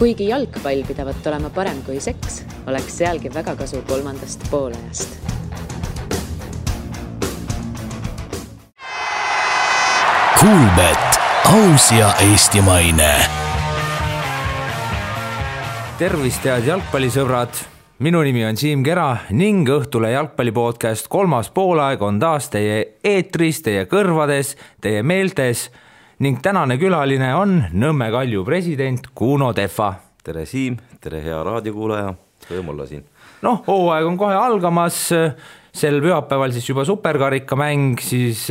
Kuigi jalgpall pidavat olema parem kui seks, oleks sealgi väga kasu kolmandast poolajast. Kuulbet, aus ja eestimaine. Tervist head jalgpallisõbrad, minu nimi on Siim Kera ning Õhtule jalgpallipodcast kolmas poolaeg on taas teie eetris, teie kõrvades, teie meeltes ning tänane külaline on Nõmme Kalju president Kuno Tehva. Tere Siim, tere hea raadiokuulaja, rõõm olla siin. Hooaeg on kohe algamas, sel pühapäeval siis juba superkarikamäng, siis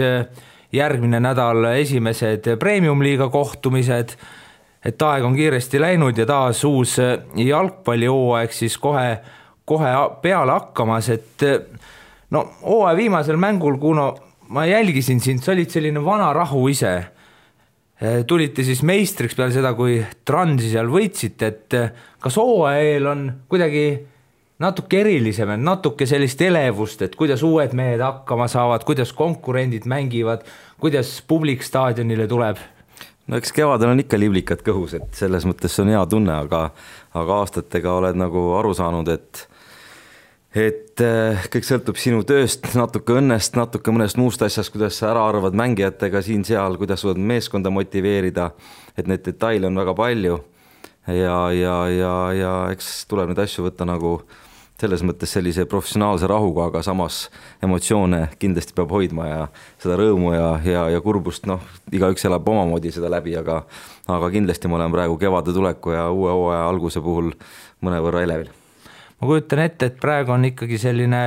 järgmine nädal esimesed premium-liiga kohtumised, et aeg on kiiresti läinud ja taas uus jalgpallihooaeg siis kohe peale hakkamas, et hooaja viimasel mängul, Kuno, ma jälgisin sind, sa olid selline vana rahu ise. Tulite siis meistriks peale seda, kui Transi seal võitsite, et kas hooaja eel on kuidagi natuke erilisem, natuke sellist elevust, et kuidas uued mehed hakkama saavad, kuidas konkurendid mängivad, kuidas publik staadionile tuleb? Eks kevadel on ikka liblikad kõhus, et selles mõttes on hea tunne, aga aastatega oled nagu aru saanud, et kõik sõltub sinu tööst, natuke õnnest, natuke mõnest muust asjast, kuidas sa ära arvad mängijatega siin-seal, kuidas suudad meeskonda motiveerida, et need detaile on väga palju ja eks tuleb neid asju võtta nagu selles mõttes sellise professionaalse rahuga, aga samas emotsioone kindlasti peab hoidma ja seda rõõmu ja kurbust, igaüks elab omamoodi seda läbi, aga kindlasti ma olen praegu kevade tuleku ja uue hooaja alguse puhul mõnevõrra elevil. Ma kujutan ette, et praegu on ikkagi selline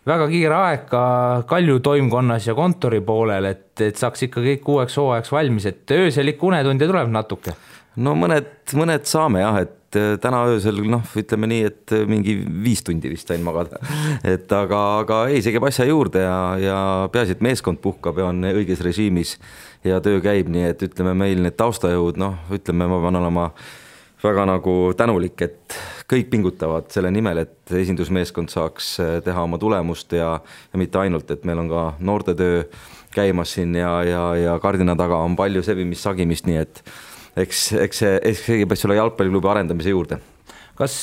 väga kiire aeg ka Kalju toimkonnas ja kontori poolel, et saaks ikka kõik uueks hooajaks valmis, et ööselik unetunde tuleb natuke. Mõned saame jah, et täna öösel, ütleme nii, et mingi 5 tundi vist sain magada. Aga ei, see käib asja juurde ja peaasi, et meeskond puhkab ja on õiges režiimis ja töö käib, nii et ütleme meil need taustajõud, ütleme ma pean olema väga nagu tänulik, et kõik pingutavad selle nimel, et esindusmeeskond saaks teha oma tulemust ja mitte ainult, et meil on ka noortetöö käimas siin ja kardina taga on palju sebimist, sagimist, nii et eks see peab selle jalgpalliklubi arendamise juurde. Kas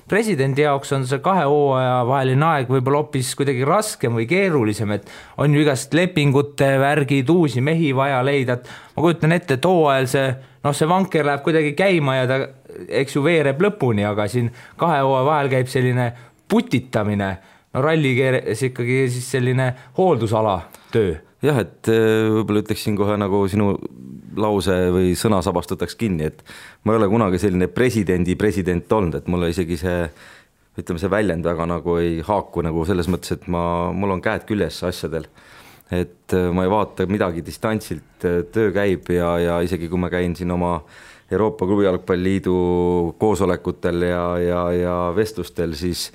presidendi jaoks on see 2 hooaja vaheline aeg võib-olla hoopis kuidagi raskem või keerulisem, et on ju igast lepingute värgid, uusi mehi vaja leida, et ma kujutan ette, et hooajal see vanker läheb kuidagi käima ja ta eks ju veereb lõpuni, aga siin 2 hooaja vahel käib selline putitamine, rallikeeres ikkagi siis selline hooldusala töö. Jah, et võib-olla ütleksin kohe nagu sinu lause või sõnasabast võtaks kinni, et ma ei ole kunagi selline president olnud, et mulle isegi see väljend väga nagu ei haaku nagu selles mõttes, et mul on käed küljes asjadel, et ma ei vaata midagi distantsilt, töö käib ja isegi kui ma käin siin oma Euroopa Klubi Jalgpalliliidu koosolekutel ja vestlustel, siis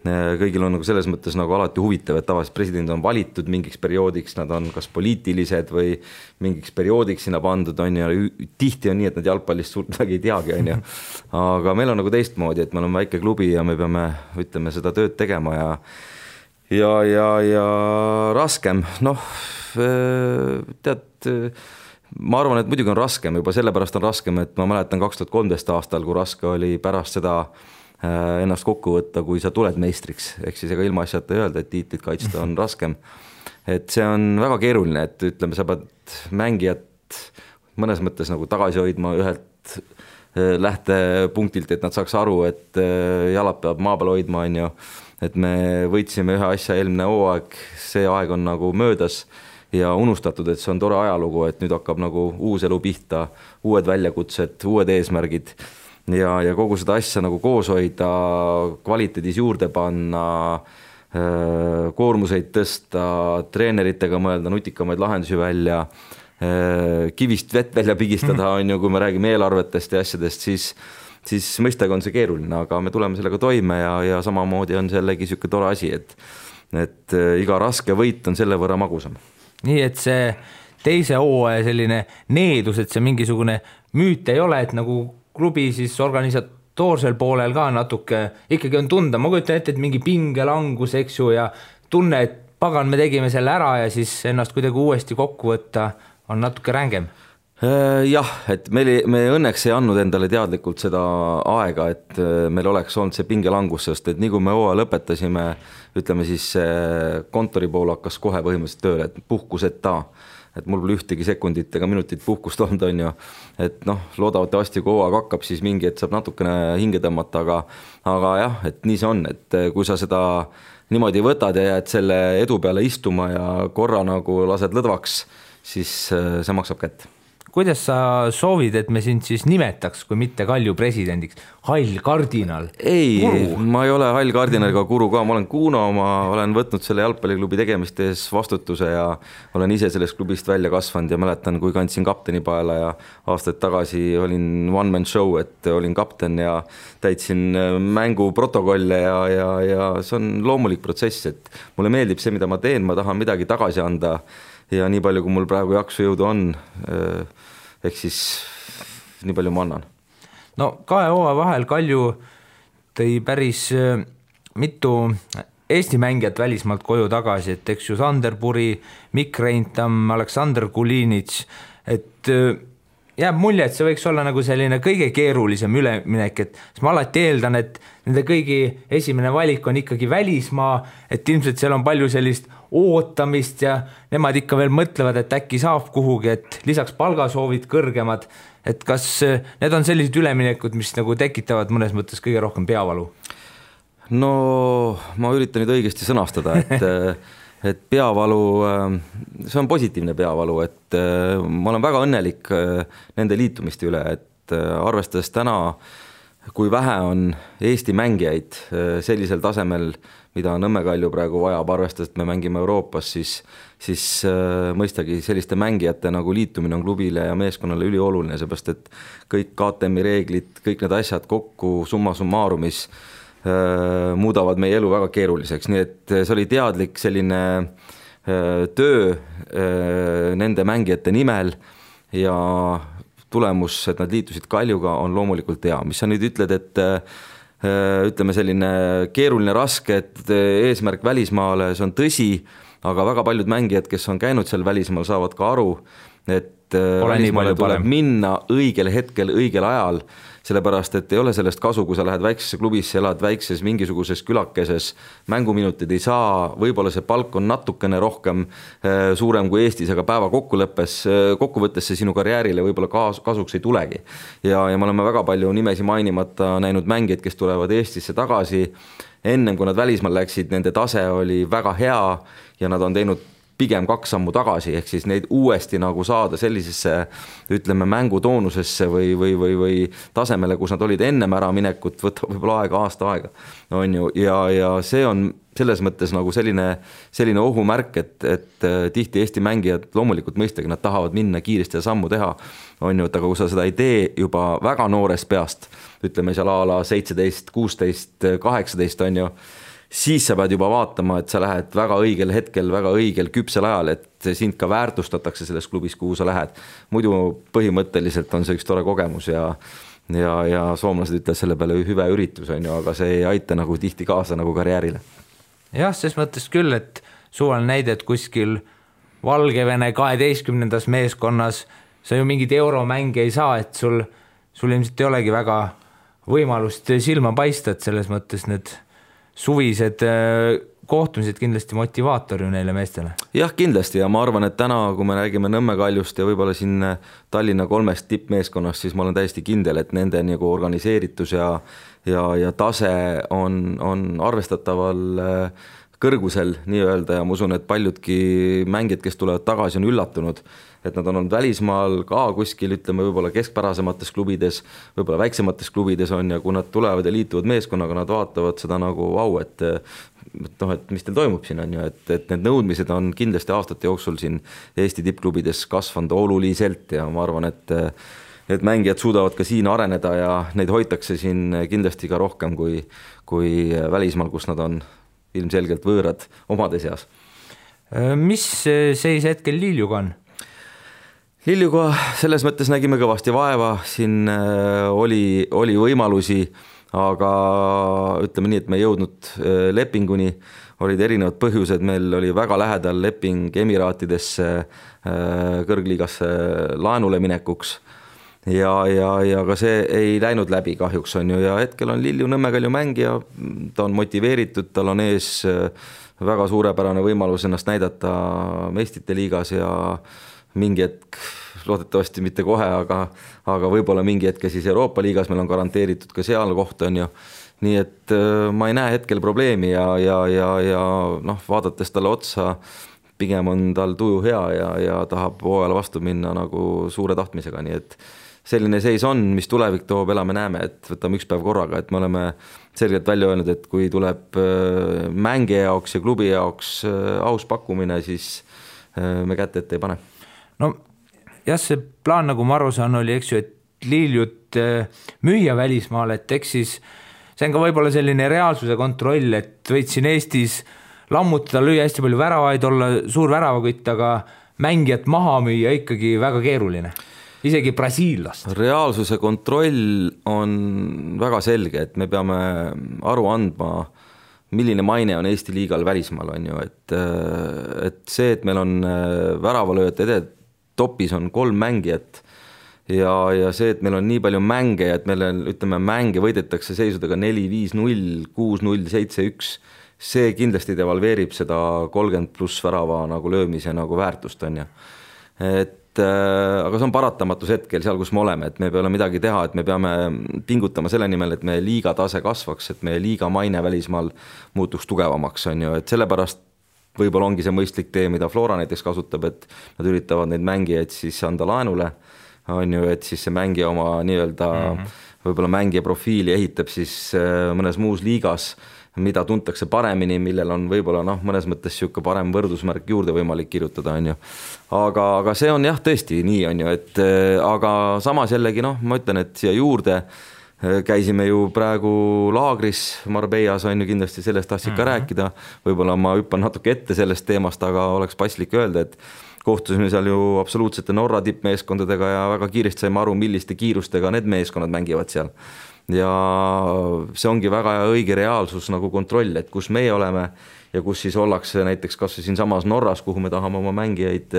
kõigil on nagu selles mõttes nagu alati huvitav, et tavaliselt president on valitud mingiks perioodiks, nad on kas poliitilised või mingiks perioodiks sinna pandud, ja tihti on nii, et nad jalgpallist suurt midagi ei teagi, aga meil on nagu teistmoodi, et me oleme väike klubi ja me peame, ütleme, seda tööd tegema ja raskem, tead, ma arvan, et muidugi on raskem, juba sellepärast on raskem, et ma mäletan 2013 aastal, kui raske oli pärast seda ennast kokku võtta, kui sa tuled meistriks, ehk siis ega ilma asjata öelda, et tiitlit kaitsta on raskem. Et see on väga keeruline, et ütleme, sa pead mängijat mõnes mõttes nagu tagasi hoidma ühelt lähtepunktilt, et nad saaks aru, et jalad peab maa peal hoidma, et me võitsime ühe asja eelmine hooaeg, see aeg on nagu möödas ja unustatud, et see on tore ajalugu, et nüüd hakkab nagu uus elu pihta, uued väljakutsed, uued eesmärgid ja kogu seda asja nagu koos hoida, kvaliteedis juurde panna, koormuseid tõsta, treeneritega mõelda nutikamaid lahendusi välja, kivist vett välja pigistada, kui me räägime eelarvetest ja asjadest, siis mõistagi on see keeruline, aga me tuleme sellega toime ja samamoodi on sellegi siuke tore asi, et iga raske võit on selle võrra magusam. Nii, et see teise hooaja selline needus, et see mingisugune müüt ei ole, et nagu klubi siis organisatoorsel poolel ka natuke ikkagi on tunda, ma kujutan ette, et mingi pingelangus, eks ju, ja tunne, et pagan, me tegime selle ära ja siis ennast kuidagi uuesti kokku võtta on natuke rängem. Jah, et me õnneks ei andnud endale teadlikult seda aega, et meil oleks olnud see pingelangus, sest et nii kui me hooaja lõpetasime, ütleme siis kontori pool hakkas kohe põhimõtteliselt tööle, et puhkuseta, et mul pole ühtegi sekundit ega minutit puhkust olnud, on ju, et noh, loodavasti kui hooaeg hakkab, siis mingi, et saab natukene hinge tõmmata, aga jah, et nii see on, et kui sa seda niimoodi võtad ja jääd selle edu peale istuma ja korra nagu lased lõdvaks, siis see maksab kätt. Kuidas sa soovid, et me sind siis nimetaks, kui mitte Kalju presidendiks? Hall kardinal? Ei, ma ei ole hall kardinal ega guru ka, ma olen Kuno, ma olen võtnud selle jalgpalliklubi tegemiste ees vastutuse ja olen ise sellest klubist välja kasvanud ja mäletan, kui kandsin kapteni paela ja aastaid tagasi olin one man show, et olin kapten ja täitsin mängu protokolle ja see on loomulik protsess, et mulle meeldib see, mida ma teen, ma tahan midagi tagasi anda ja nii palju, kui mul praegu jaksu jõudu on, ehk siis nii palju ma annan. No 2 hooaja vahel Kalju tõi päris mitu Eesti mängijat välismaalt koju tagasi, et eks ju Sander Puri, Mikk Reintam, Aleksandr Kulinits, et jääb mulje, et see võiks olla nagu selline kõige keerulisem üleminek, et ma alati eeldan, et nende kõigi esimene valik on ikkagi välismaa, et ilmselt seal on palju sellist ootamist ja nemad ikka veel mõtlevad, et äkki saab kuhugi, et lisaks palgasoovid kõrgemad, et kas need on sellised üleminekud, mis nagu tekitavad mõnes mõttes kõige rohkem peavalu? No ma üritan nüüd õigesti sõnastada, et peavalu, see on positiivne peavalu, et ma olen väga õnnelik nende liitumiste üle, et arvestades täna, kui vähe on Eesti mängijaid sellisel tasemel, mida Nõmme Kalju praegu vajab, arvestades, et me mängime Euroopas, siis mõistagi selliste mängijate nagu liitumine on klubile ja meeskonnale ülioluline, seepärast et kõik KTM-i reeglid, kõik need asjad kokku summa summarumis muudavad meie elu väga keeruliseks, nii et see oli teadlik selline töö nende mängijate nimel ja tulemus, et nad liitusid Kaljuga, on loomulikult hea. Mis sa nüüd ütled, et ütleme selline keeruline, raske, et eesmärk välismaale, see on tõsi, aga väga paljud mängijad, kes on käinud seal välismaal, saavad ka aru, et välismaale tuleb minna õigel hetkel, õigel ajal, sellepärast, et ei ole sellest kasu, kui sa lähed väiksesse klubisse, elad väikses mingisuguses külakeses, mänguminutid ei saa, võib-olla see palk on natukene rohkem suurem kui Eestis, aga päeva kokkuvõttes see sinu karjäärile võib-olla kasuks ei tulegi. Ja me oleme väga palju nimesi mainimata näinud mängijaid, kes tulevad Eestisse tagasi, ennem kui nad välismaal läksid, nende tase oli väga hea ja nad on teinud pigem 2 sammu tagasi, ehk siis neid uuesti nagu saada sellisesse, ütleme, mängutoonusesse või tasemele, kus nad olid ennem ära minekut, võtab võib-olla aasta aega, on ju, ja see on selles mõttes nagu selline ohumärk, et tihti Eesti mängijad loomulikult mõistagi, nad tahavad minna kiiresti ja sammu teha, on ju, et aga kui sa seda ei tee juba väga noorest peast, ütleme seal a la 17, 16, 18, on ju, siis sa pead juba vaatama, et sa lähed väga õigel hetkel, väga õigel küpsel ajal, et sind ka väärtustatakse selles klubis, kuhu sa lähed. Muidu põhimõtteliselt on see üks tore kogemus ja soomlased ütlevad selle peale hüve üritus, on ju, aga see ei aita nagu tihti kaasa nagu karjäärile. Jah, ses mõttes küll, et suvaline näide, et kuskil Valgevene 12. meeskonnas sa ju mingid euromänge ei saa, et sul ilmselt ei olegi väga võimalust silma paista, et selles mõttes need suvised kohtumised kindlasti motivaator ju neile meestele. Jah, kindlasti ja ma arvan, et täna, kui me räägime Nõmme Kaljust ja võib-olla siin Tallinna 3 tippmeeskonnast, siis ma olen täiesti kindel, et nende nagu organiseeritus ja tase on arvestataval kõrgusel nii-öelda ja ma usun, et paljudki mängijad, kes tulevad tagasi, on üllatunud, et nad on olnud välismaal ka kuskil, ütleme võib-olla keskpärasemates klubides, võib-olla väiksemates klubides on ja kui nad tulevad ja liituvad meeskonnaga, nad vaatavad seda nagu vau, et mis teil toimub siin on ju, et need nõudmised on kindlasti aastate jooksul siin Eesti tippklubides kasvanud oluliselt ja ma arvan, et mängijad suudavad ka siin areneda ja neid hoitakse siin kindlasti ka rohkem kui välismaal, kus nad on ilmselgelt võõrad omade seas. Mis seis hetkel Liljuga on? Liljuga selles mõttes nägime kõvasti vaeva, siin oli võimalusi, aga ütleme nii, et me ei jõudnud lepinguni, olid erinevad põhjused, meil oli väga lähedal leping Emiraatidesse kõrgliigasse laenule minekuks ja ka see ei läinud läbi kahjuks on ju, ja hetkel on Lilju Nõmmekalju mängija, ta on motiveeritud, tal on ees väga suurepärane võimalus ennast näidata meistrite liigas ja mingi hetk, loodetavasti mitte kohe, aga võib-olla mingi hetke siis Euroopa liigas meil on garanteeritud ka seal koht on ju. Nii et ma ei näe hetkel probleemi ja noh, vaadates talle otsa, pigem on tal tuju hea ja tahab hooajale vastu minna nagu suure tahtmisega, nii et selline seis on, mis tulevik toob, elame näeme, et võtame üks päev korraga, et me oleme selgelt välja öelnud, et kui tuleb mängija jaoks ja klubi jaoks aus pakkumine, siis me kätte ette ei pane. No jah, see plaan, nagu ma aru saan, oli, eks ju, et Liljut müüa välismaal, et eks siis see on ka võib-olla selline reaalsuse kontroll, et võid siin Eestis lammutada, lüüa hästi palju väravaid, olla suur väravakütt, aga mängijat maha müüa ikkagi väga keeruline. Isegi brasiillast. Reaalsuse kontroll on väga selge, et me peame aru andma, milline maine on Eesti liigal välismaal on ju, et see, et meil on väravalööjate topis on 3 mängijat ja see, et meil on nii palju mänge, et meil ütleme mänge võidetakse seisudega 4-5-0, 6-0, 7-1, see kindlasti devalveerib seda 30+ värava nagu löömise nagu väärtust on ju. Aga see on paratamatus hetkel seal, kus me oleme, et me peame midagi teha, et me peame pingutama selle nimel, et meie liiga tase kasvaks, et meie liiga maine välismaal muutuks tugevamaks on ju, et sellepärast võib-olla ongi see mõistlik tee, mida Flora näiteks kasutab, et nad üritavad neid mängijaid siis anda laenule, on ju, et siis see mängija oma nii-öelda võib-olla mängija profiili ehitab siis mõnes muus liigas, mida tuntakse paremini, millel on võib-olla mõnes mõttes siuke parem võrdusmärk juurde võimalik kirjutada, on ju. Aga see on jah tõesti nii on ju, et aga samas jällegi ma ütlen, et siia juurde käisime ju praegu laagris Marbellas on ju, kindlasti sellest tahtsid ka rääkida, võib-olla ma hüppan natuke ette sellest teemast, aga oleks paslik öelda, et kohtusime seal ju absoluutsete Norra tippmeeskondadega ja väga kiiresti saime aru, milliste kiirustega need meeskonnad mängivad seal. Ja see ongi väga õige reaalsus nagu kontroll, et kus meie oleme ja kus siis ollakse näiteks kas siin samas Norras, kuhu me tahame oma mängijaid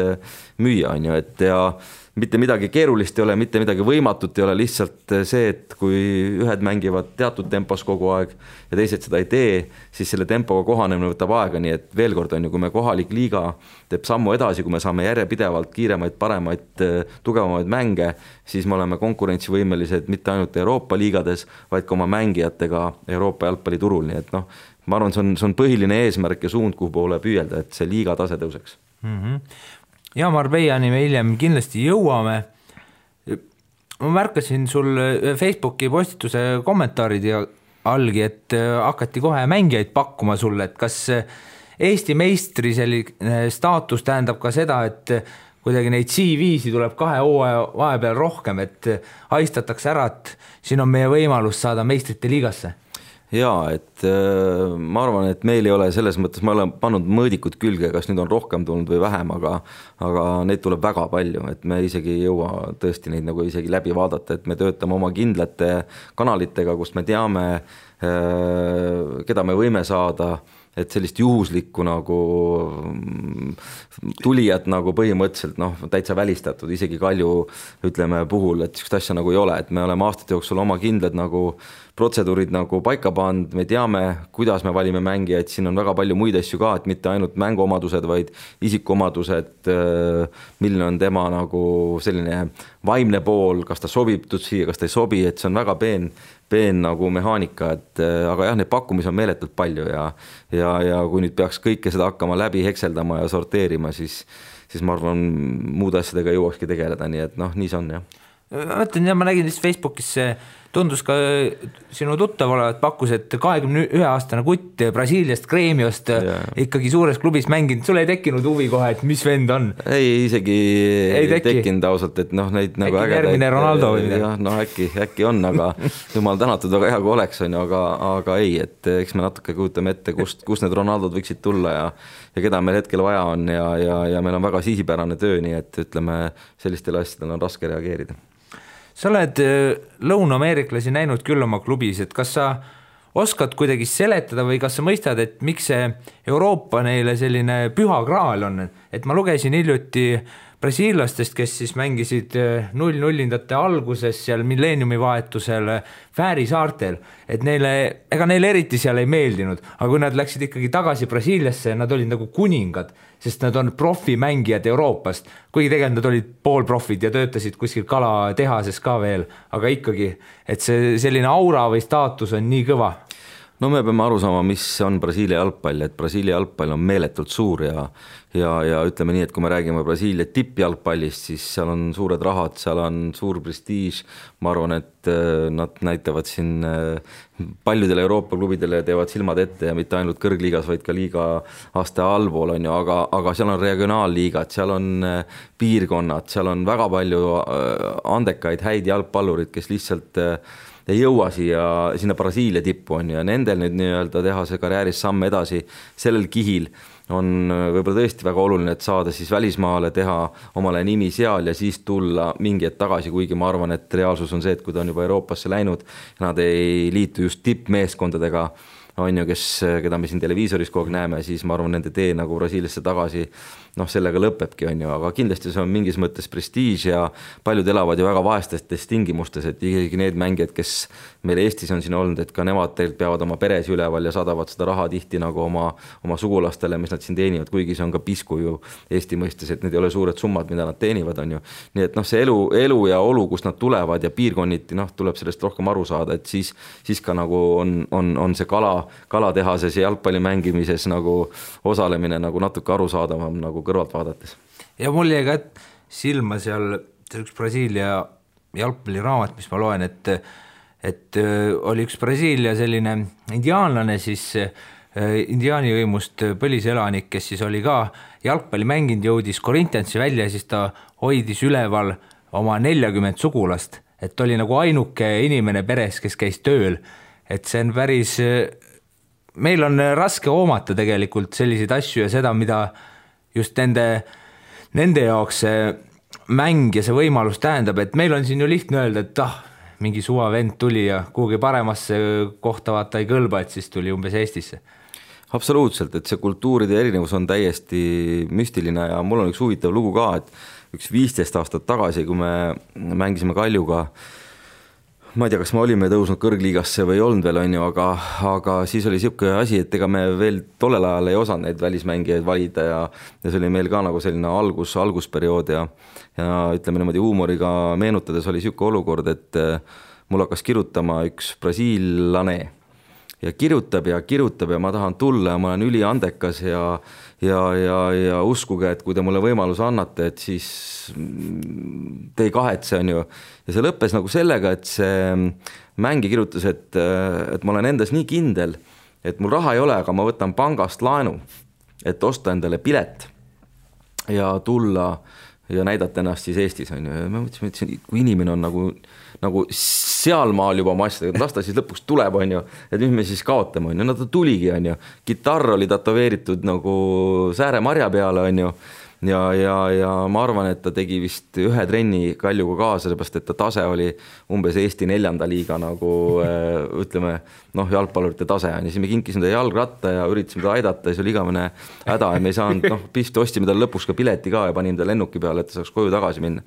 müüa, on ju, et ja mitte midagi keerulist ei ole, mitte midagi võimatut ei ole, lihtsalt see, et kui ühed mängivad teatud tempos kogu aeg ja teised seda ei tee, siis selle tempoga kohanemine võtab aega, nii et veel kord on ju, kui me kohalik liiga teeb sammu edasi, kui me saame järjepidevalt kiiremaid, paremaid, tugevamaid mänge, siis me oleme konkurentsivõimelised mitte ainult Euroopa liigades, vaid ka oma mängijatega Euroopa jalgpalliturul, nii et ma arvan, see on põhiline eesmärk ja suund, kuhu poole püüelda, et see liiga tase tõuseks. Ja Marbellani me hiljem kindlasti jõuame. Ma märkasin sul Facebooki postituse kommentaarid ja algi, et hakati kohe mängijaid pakkuma sulle, et kas Eesti meistri selline staatus tähendab ka seda, et kuidagi neid CV-si tuleb 2 hooaja vahepeal rohkem, et haistatakse ära, et siin on meie võimalus saada meistrite liigasse. Jaa, et ma arvan, et meil ei ole selles mõttes, ma olen pannud mõõdikud külge, kas nüüd on rohkem tulnud või vähem, aga neid tuleb väga palju, et me isegi ei jõua tõesti neid nagu isegi läbi vaadata, et me töötame oma kindlate kanalitega, kust me teame, keda me võime saada, et sellist juhuslikku nagu tulijat nagu põhimõtteliselt täitsa välistatud, isegi Kalju ütleme puhul, et sellist asja nagu ei ole, et me oleme aastate jooksul oma kindlad nagu protseduurid nagu paika pannud, me teame, kuidas me valime mängijaid, siin on väga palju muid asju ka, et mitte ainult mänguomadused, vaid isikuomadused, milline on tema nagu selline vaimne pool, kas ta sobib siia, kas ta ei sobi, et see on väga peen nagu mehaanika, et aga jah, neid pakkumisi on meeletult palju ja kui nüüd peaks kõike seda hakkama läbi hekseldama ja sorteerima, siis ma arvan, muude asjadega jõuakski tegeleda, nii et nii see on jah. Mõtlen, ma nägin lihtsalt Facebookis tundus ka sinu tuttav olevat pakkus, et 21-aastane kutt Brasiiliast Gremiost ikkagi suures klubis mänginud, sul ei tekkinud huvi kohe, et mis vend on? Ei, isegi ei tekkinud ausalt, et neid nagu ägedaid. Järgmine Ronaldo või midagi? Äkki on, aga jumal tänatud väga hea, kui oleks, aga ei, et eks me natuke kujutame ette, kust need Ronaldod võiksid tulla ja keda meil hetkel vaja on ja meil on väga sihipärane töö, nii et ütleme, sellistele asjadele on raske reageerida. Sa oled lõuna-ameeriklasi näinud küll oma klubis, et kas sa oskad kuidagi seletada või kas sa mõistad, et miks see Euroopa neile selline püha graal on, et ma lugesin hiljuti brasiillastest, kes siis mängisid 0-0-ndate alguses seal milleeniumi vahetusel Fääri saartel, et ega neile eriti seal ei meeldinud, aga kui nad läksid ikkagi tagasi Brasiiliasse, nad olid nagu kuningad, sest nad on profimängijad Euroopast, kuigi tegelikult nad olid poolprofid ja töötasid kuskil kalatehases ka veel, aga ikkagi, et see selline aura või staatus on nii kõva. No me peame aru saama, mis on Brasiilia jalgpall, et Brasiilia jalgpall on meeletult suur ja ütleme nii, et kui me räägime Brasiilia tippjalgpallist, siis seal on suured rahad, seal on suur prestiiž, ma arvan, et nad näitavad siin paljudele Euroopa klubidele teevad silmad ette ja mitte ainult kõrgliigas, vaid ka liiga aste allpool on ju, aga seal on regionaalliigad, seal on piirkonnad, seal on väga palju andekaid, häid jalgpallurid, kes lihtsalt ei jõua sinna Brasiilia tippu on ja nendel nüüd nii-öelda teha see karjääris samm edasi sellel kihil on võib-olla tõesti väga oluline, et saada siis välismaale, teha omale nimi seal ja siis tulla mingi hetk tagasi, kuigi ma arvan, et reaalsus on see, et kui ta on juba Euroopasse läinud ja nad ei liitu just tippmeeskondadega, on ju, keda me siin televiisoris kogu aeg näeme, siis ma arvan, nende tee nagu Brasiiliasse tagasi, sellega lõpebki, on ju, aga kindlasti see on mingis mõttes prestiiž ja paljud elavad ju väga vaestes tingimustes, et isegi need mängijad, kes meil Eestis on siin olnud, et ka nemad tegelikult peavad oma peres üleval ja saadavad seda raha tihti nagu oma sugulastele, mis nad siin teenivad, kuigi see on ka pisku ju Eesti mõistes, et need ei ole suured summad, mida nad teenivad, on ju. Nii et see elu ja olu, kus nad tulevad ja piirkonniti, tuleb sellest rohkem aru saada, et siis ka nagu on see kalatehases ja jalgpalli mängimises nagu osalemine nagu natuke arusaadavam nagu kõrvalt vaadates. Ja mul jäi ka silma seal üks Brasiilia jalgpalliraamat, mis ma loen, et oli üks Brasiilia selline indiaanlane, siis indiaani võimust põliselanik, kes siis oli ka jalgpalli mänginud, jõudis Corinthiansi välja ja siis ta hoidis üleval oma 40 sugulast, et oli nagu ainuke inimene peres, kes käis tööl, et see on päris, meil on raske hoomata tegelikult selliseid asju ja seda, mida just nende jaoks see mäng ja see võimalus tähendab, et meil on siin ju lihtne öelda, et mingi suva vend tuli ja kuhugi paremasse kohta vaata ei kõlba, et siis tuli umbes Eestisse. Absoluutselt, et see kultuuride erinevus on täiesti müstiline ja mul on üks huvitav lugu ka, et üks 15 aastat tagasi, kui me mängisime Kaljuga, ma ei tea, kas me olime tõusnud kõrgliigasse või ei olnud veel, on ju, aga siis oli siuke asi, et ega me veel tollel ajal ei osanud neid välismängijaid valida ja see oli meil ka nagu selline algusperiood ja ütleme niimoodi huumoriga meenutades oli siuke olukord, et mul hakkas kirjutama üks brasiillane ja kirjutab ja ma tahan tulla ja ma olen üliandekas ja uskuge, et kui te mulle võimaluse annate, et siis te ei kahetse, on ju. Ja see lõppes nagu sellega, et see mängi kirjutas, et ma olen endas nii kindel, et mul raha ei ole, aga ma võtan pangast laenu, et osta endale pilet ja tulla ja näidata ennast siis Eestis, on ju. Ja ma mõtlesin, kui inimene on nagu sealmaal juba oma asjadega, las ta siis lõpuks tuleb, on ju, et mis me siis kaotame, on ju, ta tuligi, on ju, gitarr oli tatoveeritud nagu Sääre-Marja peale, on ju, ja ma arvan, et ta tegi vist ühe trenni Kaljuga kaasa, seepärast, et ta tase oli umbes Eesti 4. liiga nagu ütleme, jalgpallurite tase on ja siis me kinkisime ta jalgratta ja üritasime ta aidata ja see oli igavene häda ja me ei saanud, pist ostsime tal lõpuks ka pileti ka ja panime ta lennuki peale, et ta saaks koju tagasi minna.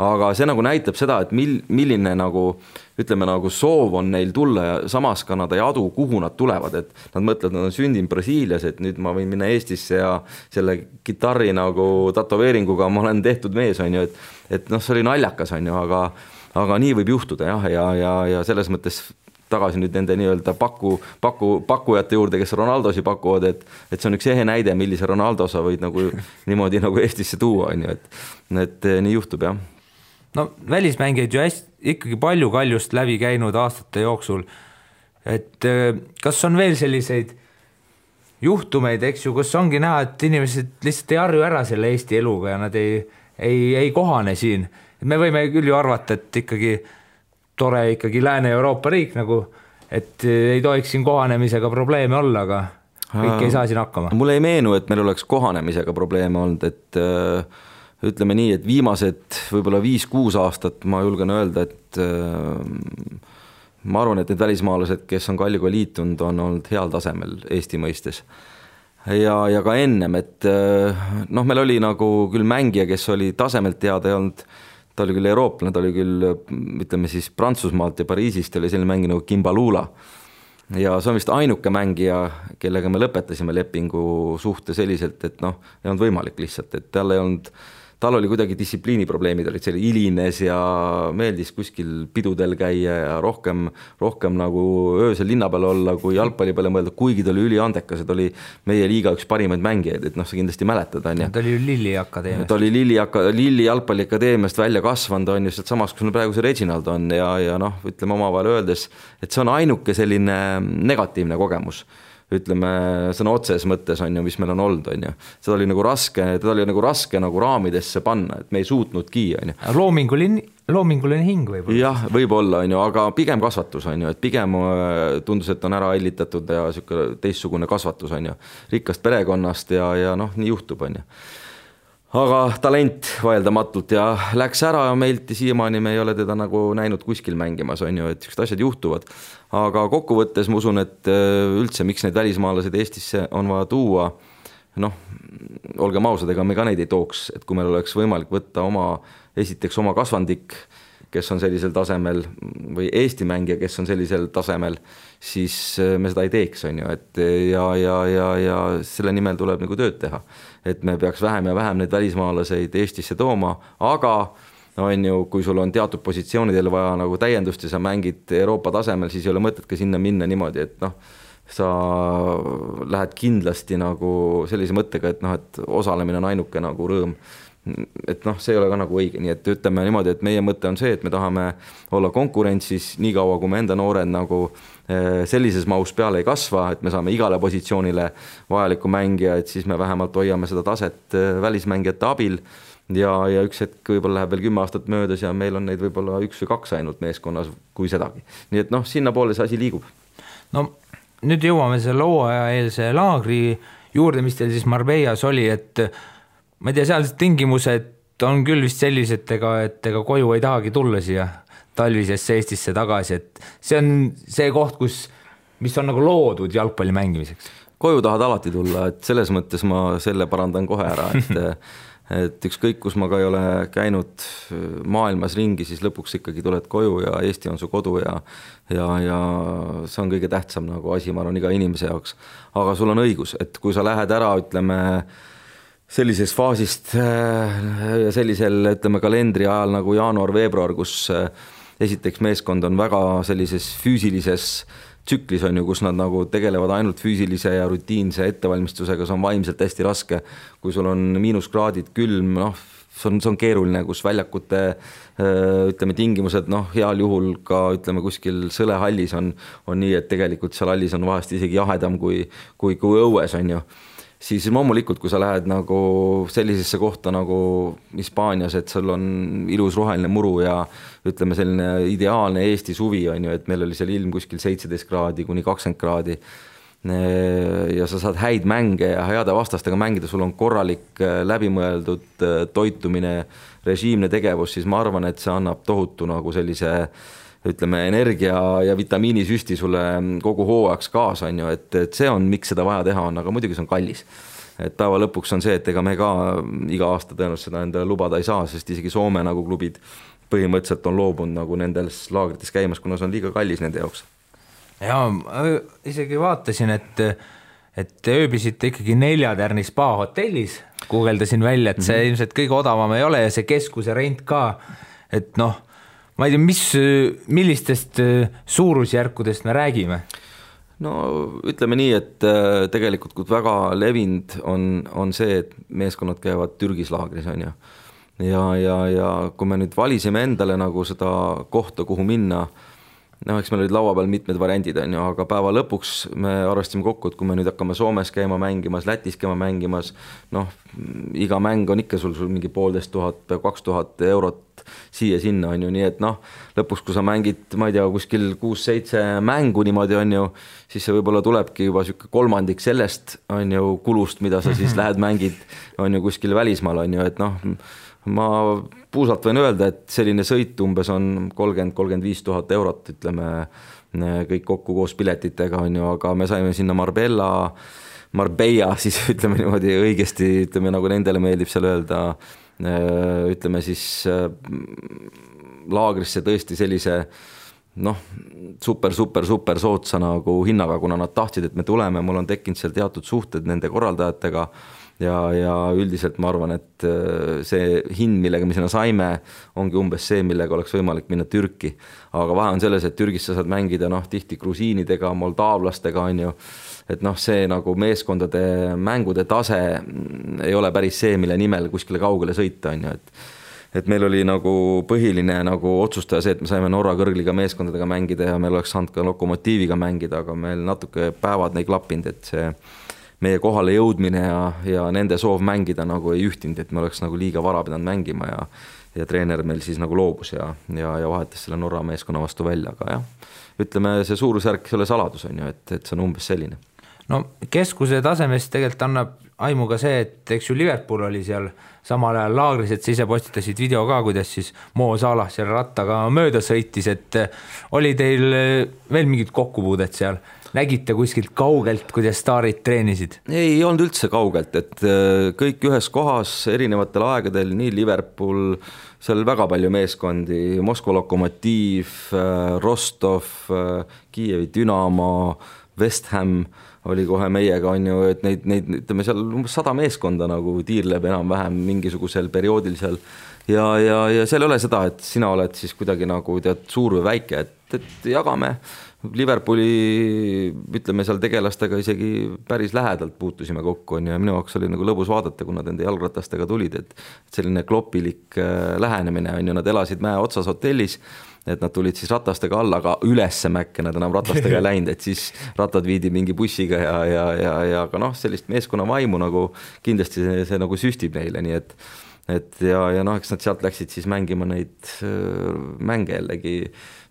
Aga see nagu näitab seda, et milline nagu ütleme nagu soov on neil tulla ja samas ka nad ei adu, kuhu nad tulevad, et nad mõtlevad, nad on sündinud Brasiilias, et nüüd ma võin minna Eestisse ja selle gitarri nagu tatoveeringuga ma olen tehtud mees, on ju, et see oli naljakas, on ju, aga nii võib juhtuda ja selles mõttes tagasi nüüd nende nii-öelda pakkujate juurde, kes Ronaldosi pakuvad, et see on üks ehe näide, millise Ronaldo sa võid nagu niimoodi nagu Eestisse tuua, on ju, et nii juhtub, jah. No välismängijaid ju ikkagi palju Kaljust läbi käinud aastate jooksul, et kas on veel selliseid juhtumeid, eks ju, kus ongi näha, et inimesed lihtsalt ei harju ära selle Eesti eluga ja nad ei kohane siin. Me võime küll ju arvata, et tore ikkagi Lääne-Euroopa riik nagu, et ei tohiks siin kohanemisega probleeme olla, aga kõik ei saa siin hakkama. Mulle ei meenu, et meil oleks kohanemisega probleeme olnud, et ütleme nii, et viimased võib-olla 5-6 aastat ma julgen öelda, et ma arvan, et need välismaalased, kes on Kaljuga liitunud, on olnud heal tasemel Eesti mõistes. Ja ka ennem, et noh, meil oli nagu küll mängija, kes oli tasemelt teada ja olnud, ta oli küll eurooplane, ta oli küll, ütleme siis Prantsusmaalt ja Pariisist oli selline mängi nagu Kimbalula. Ja see on vist ainuke mängija, kellega me lõpetasime lepingu suhte selliselt, et noh, ei olnud võimalik lihtsalt, et tal oli kuidagi distsipliiniprobleemid, olid selle ilines ja meeldis kuskil pidudel käia ja rohkem nagu öösel linna peal olla, kui jalgpalli peale mõelda, kuigi ta oli üliandekas, et oli meie liiga üks parimaid mängijaid, et noh, sa kindlasti mäletad, on ju. Ta oli ju Lilli akadeemiast. Ta oli Lilli jalgpalli akadeemiast välja kasvanud, on ju, sealt samas, kus praegu see Reginald on ja noh, ütleme omavahel öeldes, et see on ainuke selline negatiivne kogemus. Ütleme sõna otses mõttes on ju, mis meil on olnud, on ju. Seda oli nagu raske nagu raamidesse panna, et me ei suutnudki, on ju. Loominguline hing võib-olla. Jah, võib-olla, on ju, aga pigem kasvatus, on ju, et pigem tundus, et on ära ellitatud ja teistsugune kasvatus, on ju. Rikkast perekonnast ja noh, nii juhtub, on ju. Aga talent vaeldamatult ja läks ära meilt ja siiamaani me ei ole teda nagu näinud kuskil mängimas, on ju, et sellised asjad juhtuvad. Aga kokkuvõttes ma usun, et üldse, miks need välismaalased Eestisse on vaja tuua, noh, olgem ausad, ega me ka neid ei tooks, et kui meil oleks võimalik võtta esiteks oma kasvandik, kes on sellisel tasemel või Eesti mängija, kes on sellisel tasemel, siis me seda ei teeks, on ju, et ja selle nimel tuleb nagu tööd teha, et me peaks vähem ja vähem neid välismaalaseid Eestisse tooma, aga on ju, kui sul on teatud positsioonidel vaja nagu täiendust ja sa mängid Euroopa tasemel, siis ei ole mõtet ka sinna minna niimoodi, et noh, sa lähed kindlasti nagu sellise mõttega, et noh, et osalemine on ainuke nagu rõõm. Et noh, see ei ole ka nagu õige, nii et ütleme niimoodi, et meie mõte on see, et me tahame olla konkurentsis nii kaua, kui me enda noored nagu sellises mahus peale ei kasva, et me saame igale positsioonile vajaliku mängija, et siis me vähemalt hoiame seda taset välismängijate abil ja üks hetk võib-olla läheb veel 10 aastat möödas ja meil on neid võib-olla 1 või 2 ainult meeskonnas, kui sedagi. Nii et noh, sinna poole see asi liigub. No nüüd jõuame selle hooajaeelse laagri juurde, mis teil siis Marbellas oli, et ma ei tea, sealsed tingimused on küll vist sellised, et ega koju ei tahagi tulla siia talvisesse Eestisse tagasi, et see on see koht, mis on nagu loodud jalgpalli mängimiseks. Koju tahad alati tulla, et selles mõttes ma selle parandan kohe ära, et ükskõik, kus ma ka ei ole käinud maailmas ringi, siis lõpuks ikkagi tuled koju ja Eesti on su kodu ja see on kõige tähtsam nagu asi, ma arvan, iga inimese jaoks. Aga sul on õigus, et kui sa lähed ära, ütleme, sellisest faasist ja sellisel, ütleme, kalendri ajal nagu jaanuar-veebruar, kus esiteks meeskond on väga sellises füüsilises tsüklis, on ju, kus nad nagu tegelevad ainult füüsilise ja rutiinse ettevalmistusega, see on vaimselt hästi raske, kui sul on miinuskraadid, külm, noh, see on keeruline, kus väljakute ütleme, tingimused, noh, heal juhul ka ütleme, kuskil sõlehallis on nii, et tegelikult seal hallis on vahest isegi jahedam kui õues, on ju. Siis loomulikult, kui sa lähed nagu sellisesse kohta nagu Hispaanias, et sul on ilus roheline muru ja ütleme selline ideaalne Eesti suvi, on ju, et meil oli seal ilm kuskil 17 kraadi kuni 20 kraadi ja sa saad häid mänge ja heade vastastega mängida, sul on korralik läbimõeldud toitumine, režiimne tegevus, siis ma arvan, et see annab tohutu nagu sellise ütleme, energia ja vitamiinisüsti sulle kogu hooajaks kaasa, on ju, et see on, miks seda vaja teha on, aga muidugi see on kallis. Et päeva lõpuks on see, et ega me ka iga aasta tõenäoliselt seda endale lubada ei saa, sest isegi Soome nagu klubid põhimõtteliselt on loobunud nagu nendes laagrites käimas, kuna see on liiga kallis nende jaoks. Ja isegi vaatasin, et ööbisite ikkagi 4-tärni spa hotellis, guugeldasin välja, et see ilmselt kõige odavam ei ole ja see keskuse rent ka, et noh, ma ei tea, millistest suurusjärkudest me räägime? No ütleme nii, et tegelikult kui väga levinud on see, et meeskonnad käivad Türgis laagris, on ju. Ja kui me nüüd valisime endale nagu seda kohta, kuhu minna, noh, eks meil olid laua peal mitmed variandid, on ju, aga päeva lõpuks me arvestasime kokku, et kui me nüüd hakkame Soomes käima mängimas, Lätis käima mängimas, noh, iga mäng on ikka sul mingi 1500, 2000 eurot siia-sinna, on ju, nii et noh, lõpuks kui sa mängid, ma ei tea, kuskil 6-7 mängu niimoodi, on ju, siis see võib-olla tulebki juba siuke kolmandik sellest, on ju, kulust, mida sa siis lähed mängid, on ju, kuskil välismaal, on ju, et noh, ma puusalt võin öelda, et selline sõit umbes on 30-35 000 eurot, ütleme kõik kokku koos piletitega on ju, aga me saime sinna Marbella, siis ütleme niimoodi õigesti, ütleme nagu nendele meeldib seal öelda, ütleme siis laagrisse tõesti sellise super sootsa nagu hinnaga, kuna nad tahtsid, et me tuleme, mul on tekkinud seal teatud suhted nende korraldajatega ja üldiselt ma arvan, et see hind, millega me sinna saime, ongi umbes see, millega oleks võimalik minna Türki. Aga vahe on selles, et Türgis sa saad mängida tihti grusiinidega, moldaavlastega on ju, et see nagu meeskondade mängude tase ei ole päris see, mille nimel kuskile kaugele sõita on ju, et meil oli nagu põhiline nagu otsustaja see, et me saime Norra kõrgliga meeskondadega mängida ja meil oleks saanud ka Lokomotiiviga mängida, aga meil natuke päevad ei klappinud, et see meie kohale jõudmine ja nende soov mängida nagu ei ühtinud, et me oleks nagu liiga vara pidanud mängima ja treener meil siis nagu loobus ja vahetas selle Norra meeskonna vastu välja, aga jah, ütleme see suurusjärk ei ole saladus on ju, et see on umbes selline. No keskuse tasemest tegelikult annab aimu ka see, et eks ju Liverpool oli seal samal ajal laagris, et sa ise postitasid video ka, kuidas siis Mo Salah seal rattaga mööda sõitis, et oli teil veel mingid kokkupuudet seal? Nägite kuskilt kaugelt, kuidas staarid treenisid? Ei olnud üldse kaugelt, et kõik ühes kohas erinevatel aegadel, nii Liverpool, seal väga palju meeskondi, Moskva Lokomotiiv, Rostov, Kiievi Dünamo, West Ham oli kohe meiega on ju, et neid ütleme seal 100 meeskonda nagu tiirleb enam-vähem mingisugusel perioodil seal ja seal ei ole seda, et sina oled siis kuidagi nagu tead suur või väike, et jagame Liverpooli, ütleme seal tegelastega isegi päris lähedalt puutusime kokku on ja minu jaoks oli nagu lõbus vaadata, kui nad enda jalgratastega tulid, et selline kloppilik lähenemine on ju, nad elasid mäe otsas hotellis, et nad tulid siis ratastega alla, aga ülesse mäkke nad enam ratastega läinud, et siis rattad viidi mingi bussiga ja aga sellist meeskonna vaimu nagu kindlasti see nagu süstib neile, nii et eks nad sealt läksid siis mängima neid mänge jällegi.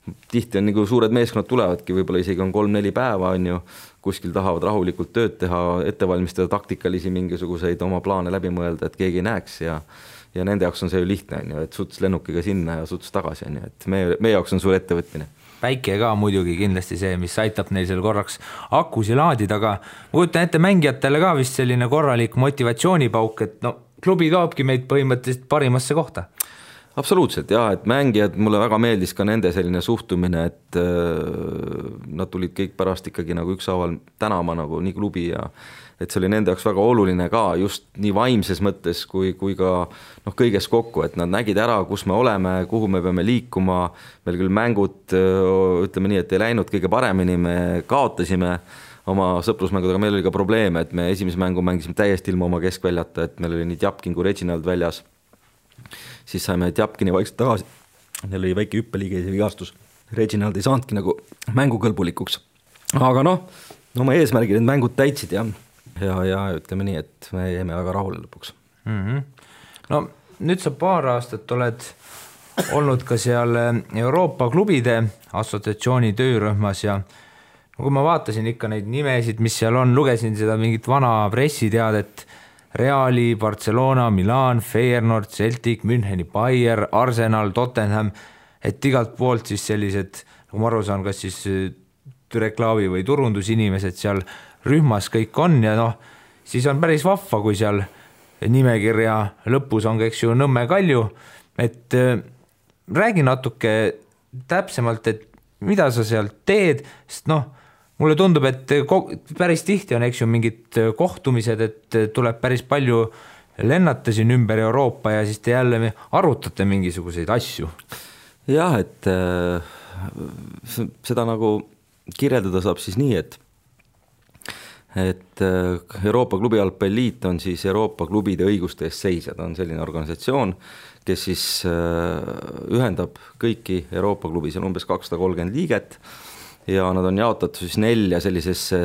Tihti on nagu suured meeskonnad tulevadki, võib-olla isegi on 3-4 päeva on ju, kuskil tahavad rahulikult tööd teha, ettevalmistada taktikalisi mingisuguseid oma plaane läbi mõelda, et keegi ei näeks ja nende jaoks on see ju lihtne on ju, et suts lennukiga sinna ja suts tagasi on ju, et meie jaoks on suur ettevõtmine. Päike ka muidugi kindlasti see, mis aitab neil seal korraks akusi laadida, aga kujutan ette mängijatele ka vist selline korralik motivatsioonipauk, et klubi toobki meid põhimõtteliselt parimasse kohta. Absoluutselt jah, et mängijad, mulle väga meeldis ka nende selline suhtumine, et nad tulid kõik pärast ikkagi nagu ükshaaval tänama nagu nii klubi ja et see oli nende jaoks väga oluline ka just nii vaimses mõttes kui ka kõiges kokku, et nad nägid ära, kus me oleme, kuhu me peame liikuma, meil küll mängud, ütleme nii, et ei läinud kõige paremini, me kaotasime oma sõprusmängudega, meil oli ka probleeme, et me esimese mängu mängisime täiesti ilma oma keskväljata, et meil oli nii Tjapkin kui Reginald väljas. Siis saime Tjapkini vaikselt tagasi, neil oli väike hüppeliige vigastus, Reginald ei saanudki nagu mängukõlbulikuks, aga oma eesmärgid need mängud täitsid ja ütleme nii, et me jäime väga rahule lõpuks. No nüüd sa paar aastat oled olnud ka seal Euroopa klubide assotsiatsiooni töörühmas ja kui ma vaatasin ikka neid nimesid, mis seal on, lugesin seda mingit vana pressiteadet, Reali, Barcelona, Milan, Feyenoord, Celtic, Müncheni, Bayer, Arsenal, Tottenham, et igalt poolt siis sellised, nagu ma aru saan, kas siis reklaami või turundusinimesed seal rühmas kõik on ja siis on päris vahva, kui seal nimekirja lõpus on, eks ju, Nõmme Kalju, et räägi natuke täpsemalt, et mida sa seal teed, sest mulle tundub, et päris tihti on, eks ju, mingid kohtumised, et tuleb päris palju lennata siin ümber Euroopa ja siis te jälle arutate mingisuguseid asju. Jah, et seda nagu kirjeldada saab siis nii, et Euroopa klubijalgpalliliit on siis Euroopa klubide õiguste eest seisjad, on selline organisatsioon, kes siis ühendab kõiki Euroopa klubis, on umbes 230 liiget ja nad on jaotatud siis 4 sellisesse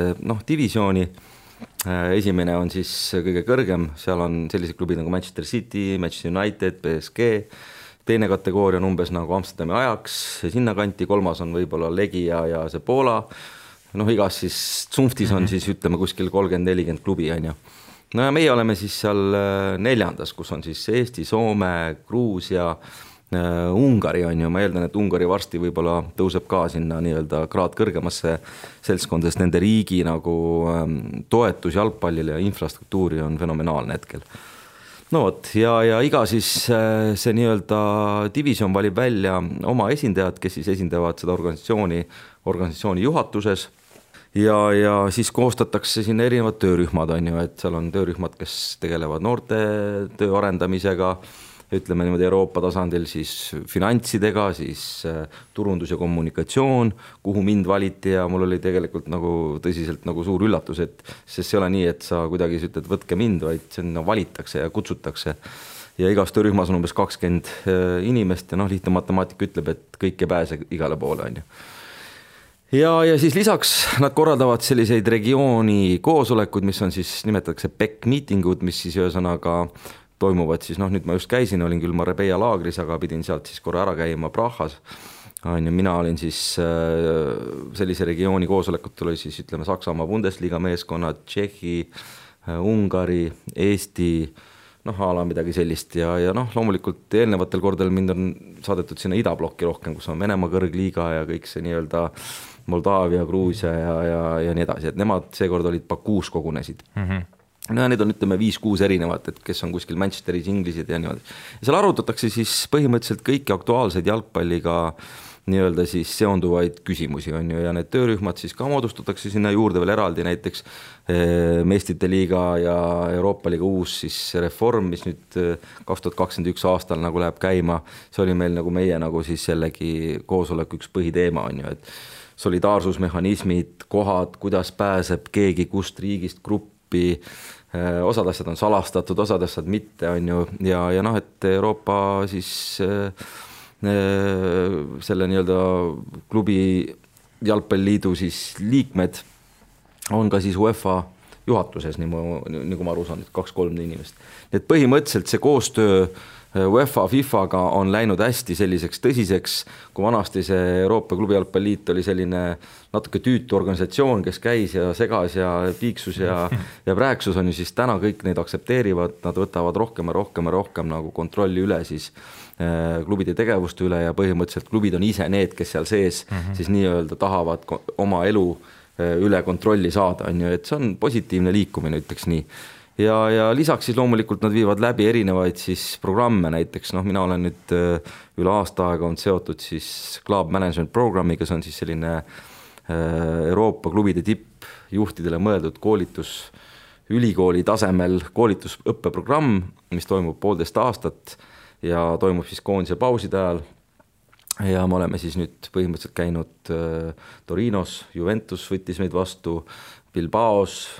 divisiooni. Esimene on siis kõige kõrgem, seal on sellised klubid nagu Manchester City, Manchester United, PSG, teine kategooria on umbes nagu Amsterdami Ajax, sinna kanti, kolmas on võib-olla Legia ja see Poola, igas siis Zunftis on siis ütleme kuskil 30-40 klubi on ju. no ja meie oleme siis seal 4. kus on siis Eesti, Soome, Gruusia, Ungari on ju, ma eeldan, et Ungari varsti võib-olla tõuseb ka sinna nii-öelda kraad kõrgemasse seltskonda, sest nende riigi nagu toetus jalgpallile ja infrastruktuuri on fenomenaalne hetkel. No vot, ja iga siis see nii-öelda division valib välja oma esindajad, kes siis esindavad seda organisatsiooni juhatuses ja siis koostatakse siin erinevad töörühmad on ju, et seal on töörühmad, kes tegelevad noorte töö arendamisega, ütleme niimoodi Euroopa tasandil siis finantsidega, siis turundus ja kommunikatsioon, kuhu mind valiti ja mul oli tegelikult nagu tõsiselt nagu suur üllatus, et sest see ei ole nii, et sa kuidagi ütled, võtke mind, vaid sinna valitakse ja kutsutakse. Ja igas töörühmas on umbes 20 inimest ja lihtne matemaatika ütleb, et kõik ei pääse igale poole on ju. Ja siis lisaks nad korraldavad selliseid regiooni koosolekuid, mis on siis nimetatakse PEC miitingud, mis siis ühesõnaga toimuvad siis, nüüd ma just käisin, olin küll Marbella laagris, aga pidin sealt siis korra ära käima Prahas. Mina olin siis sellise regiooni koosolekut oli siis ütleme Saksamaa Bundesliga meeskonnad, Tšehhi, Ungari, Eesti, ala midagi sellist ja loomulikult eelnevatel kordadel mind on saadetud sinna idablokki rohkem, kus on Venemaa kõrgliiga ja kõik see nii-öelda Moldaavia, Gruusia ja nii edasi, et nemad seekord olid Bakuus kogunesid. No ja need on ütleme 5-6 erinevat, et kes on kuskil Manchesteris, Inglised ja niimoodi. Ja seal arutatakse siis põhimõtteliselt kõiki aktuaalseid jalgpalliga nii-öelda siis seonduvaid küsimusi on ju ja need töörühmad siis ka moodustatakse sinna juurde veel eraldi näiteks Meistrite liiga ja Euroopa liiga uus siis reform, mis nüüd 2021 aastal nagu läheb käima. See oli meil nagu meie nagu siis jällegi koosoleku üks põhiteema on ju, et solidaarsusmehhanismid, kohad, kuidas pääseb keegi kust riigist gruppi, osad asjad on salastatud, osad asjad mitte on ju ja et Euroopa siis selle nii-öelda klubi jalgpalliliidu siis liikmed on ka siis UEFA juhatuses, nagu ma aru saan, 2-3 inimest. Et põhimõtteliselt see koostöö UEFA, FIFA-ga on läinud hästi selliseks tõsiseks, kui vanasti see Euroopa klubi jalgpalliliit oli selline natuke tüütu organisatsioon, kes käis ja segas ja piiksus ja rääksus on ju, siis täna kõik neid aksepteerivad, nad võtavad rohkem nagu kontrolli üle siis klubide tegevuste üle ja põhimõtteliselt klubid on ise need, kes seal sees siis nii-öelda tahavad oma elu üle kontrolli saada, on ju, et see on positiivne liikumine, ütleks nii. Ja lisaks siis loomulikult nad viivad läbi erinevaid siis programme, näiteks mina olen nüüd üle aasta aega on seotud siis Club Management Programmiga, see on siis selline Euroopa klubide tippjuhtidele mõeldud koolitus, ülikooli tasemel koolitusõppeprogramm, mis toimub 1,5 aastat ja toimub siis koondise pauside ajal. Ja me oleme siis nüüd põhimõtteliselt käinud Torinos, Juventus võttis meid vastu, Bilbaos,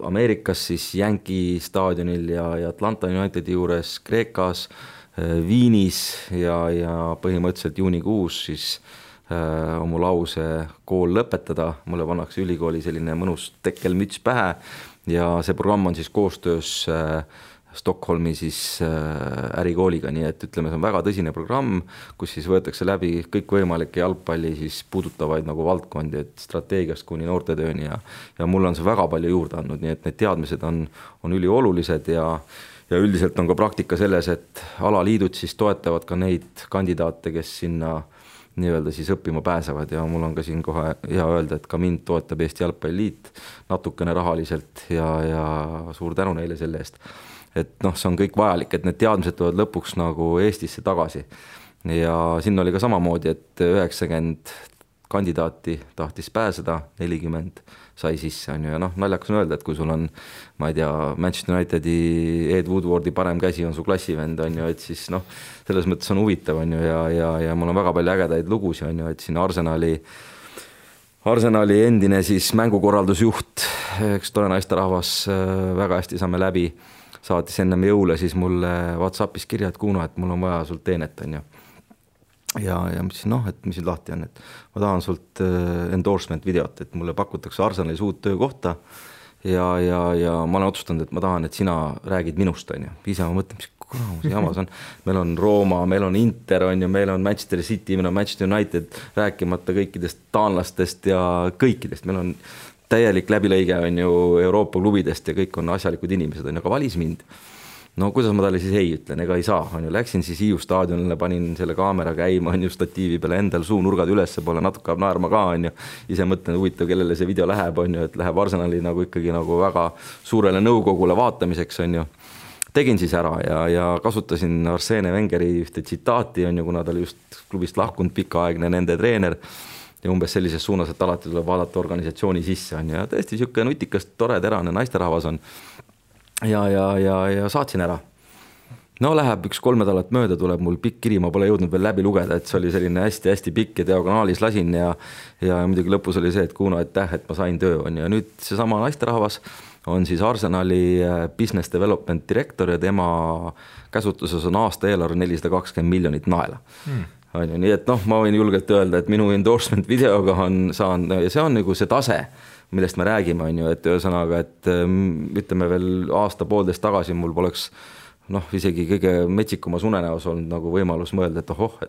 Ameerikas siis Yankee staadionil ja Atlanta Unitedi juures, Kreekas, Viinis ja põhimõtteliselt juunikuus siis oma lause kool lõpetada. Mulle pannakse ülikooli selline mõnus tekkelmüts pähe ja see programm on siis koostöös Stockholmi siis ärikooliga, nii et ütleme, see on väga tõsine programm, kus siis võetakse läbi kõikvõimalikke jalgpalli siis puudutavaid nagu valdkondi, et strateegiast kuni noortetööni ja mulle on see väga palju juurde andnud, nii et need teadmised on üliolulised ja üldiselt on ka praktika selles, et alaliidud siis toetavad ka neid kandidaate, kes sinna nii-öelda siis õppima pääsevad ja mul on ka siin kohe hea öelda, et ka mind toetab Eesti Jalgpalliliit natukene rahaliselt ja suur tänu neile selle eest. Et see on kõik vajalik, et need teadmised tulevad lõpuks nagu Eestisse tagasi ja siin oli ka samamoodi, et 90 kandidaati tahtis pääseda, 40 sai sisse on ju ja naljakas on öelda, et kui sul on, ma ei tea, Manchester Unitedi Ed Woodwardi parem käsi on su klassivend on ju, et siis selles mõttes on huvitav on ju ja mul on väga palju ägedaid lugusi on ju, et siin Arsenali endine siis mängukorraldusjuht, eks tore naisterahvas, väga hästi saame läbi, saatis ennem jõule siis mulle WhatsAppis kirja, et Kuno, et mul on vaja sult teenet on ju. Ja mõtlesin, et mis nüüd lahti on, et ma tahan sult endorsement videot, et mulle pakutakse Arsenalis uut töökohta ja ma olen otsustanud, et ma tahan, et sina räägid minust on ju. Ise ma mõtlen, mis kuramus jamas on. Meil on Rooma, meil on Inter on ju, meil on Manchester City, meil on Manchester United, rääkimata kõikidest taanlastest ja kõikidest. Meil on täielik läbilõige on ju Euroopa klubidest ja kõik on asjalikud inimesed, on ju, aga valis mind. No kuidas ma talle siis ei ütlen, ega ei saa, on ju, läksin siis Hiiu staadionile, panin selle kaamera käima, on ju, statiivi peale endal suunurgad ülesse poole, natuke naerma ka, on ju, ise mõtlen, huvitav, kellele see video läheb, on ju, et läheb Arsenali nagu ikkagi nagu väga suurele nõukogule vaatamiseks, on ju. Tegin siis ära ja kasutasin Arsene Wengeri ühte tsitaati, on ju, kuna ta oli just klubist lahkunud pikaaegne nende treener ja umbes sellises suunas, et alati tuleb vaadata organisatsiooni sisse, on ju, ja tõesti siuke nutikas, tore, terane naisterahvas on. Ja saatsin ära. No läheb 1-3 nädalat mööda, tuleb mul pikk kiri, ma pole jõudnud veel läbi lugeda, et see oli selline hästi-hästi pikk ja diagonaalis lasin ja muidugi lõpus oli see, et Kuno, aitäh, et ma sain töö, on ja nüüd seesama naisterahvas on siis Arsenali business development direktor ja tema käsutuses on aasta eelarve 420 miljonit naela. On ju, nii et noh, ma võin julgelt öelda, et minu endorsement videoga saan ja see on nagu see tase, millest me räägime, on ju, et ühesõnaga, et ütleme veel aasta-poolteist tagasi mul poleks noh, isegi kõige metsikumas unenäos olnud nagu võimalus mõelda, et ohoh,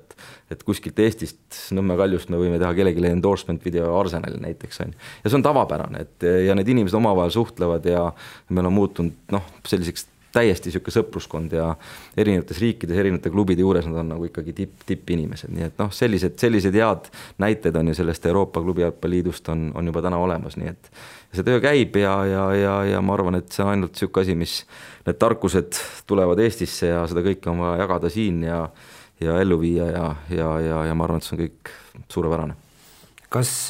et kuskilt Eestist Nõmme Kaljust me võime teha kellelegi endorsement video Arsenali näiteks, on. Ja see on tavapärane, et ja need inimesed omavahel suhtlevad ja meil on muutunud noh, selliseks täiesti siuke sõpruskond ja erinevates riikides, erinevate klubide juures nad on nagu ikkagi tipp inimesed, nii et noh, sellised head näited on ju sellest Euroopa klubi jalgpalliliidust on juba täna olemas, nii et see töö käib ja ma arvan, et see on ainult siuke asi, mis need tarkused tulevad Eestisse ja seda kõike on vaja jagada siin ja ellu viia ja ma arvan, et see on kõik suurepärane. Kas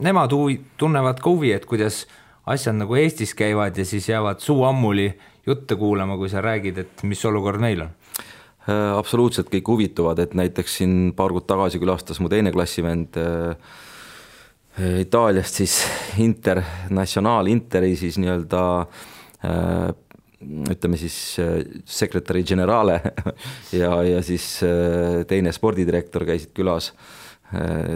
nemad tunnevad ka huvi, et kuidas asjad nagu Eestis käivad ja siis jäävad suu ammuli jutte kuulama, kui sa räägid, et mis olukord meil on? Absoluutselt kõik huvituvad, et näiteks siin paar kuud tagasi külastas mu teine klassivend Itaaliast siis Interi siis nii-öelda ütleme siis sekretäri generale ja siis teine spordidirektor käisid külas.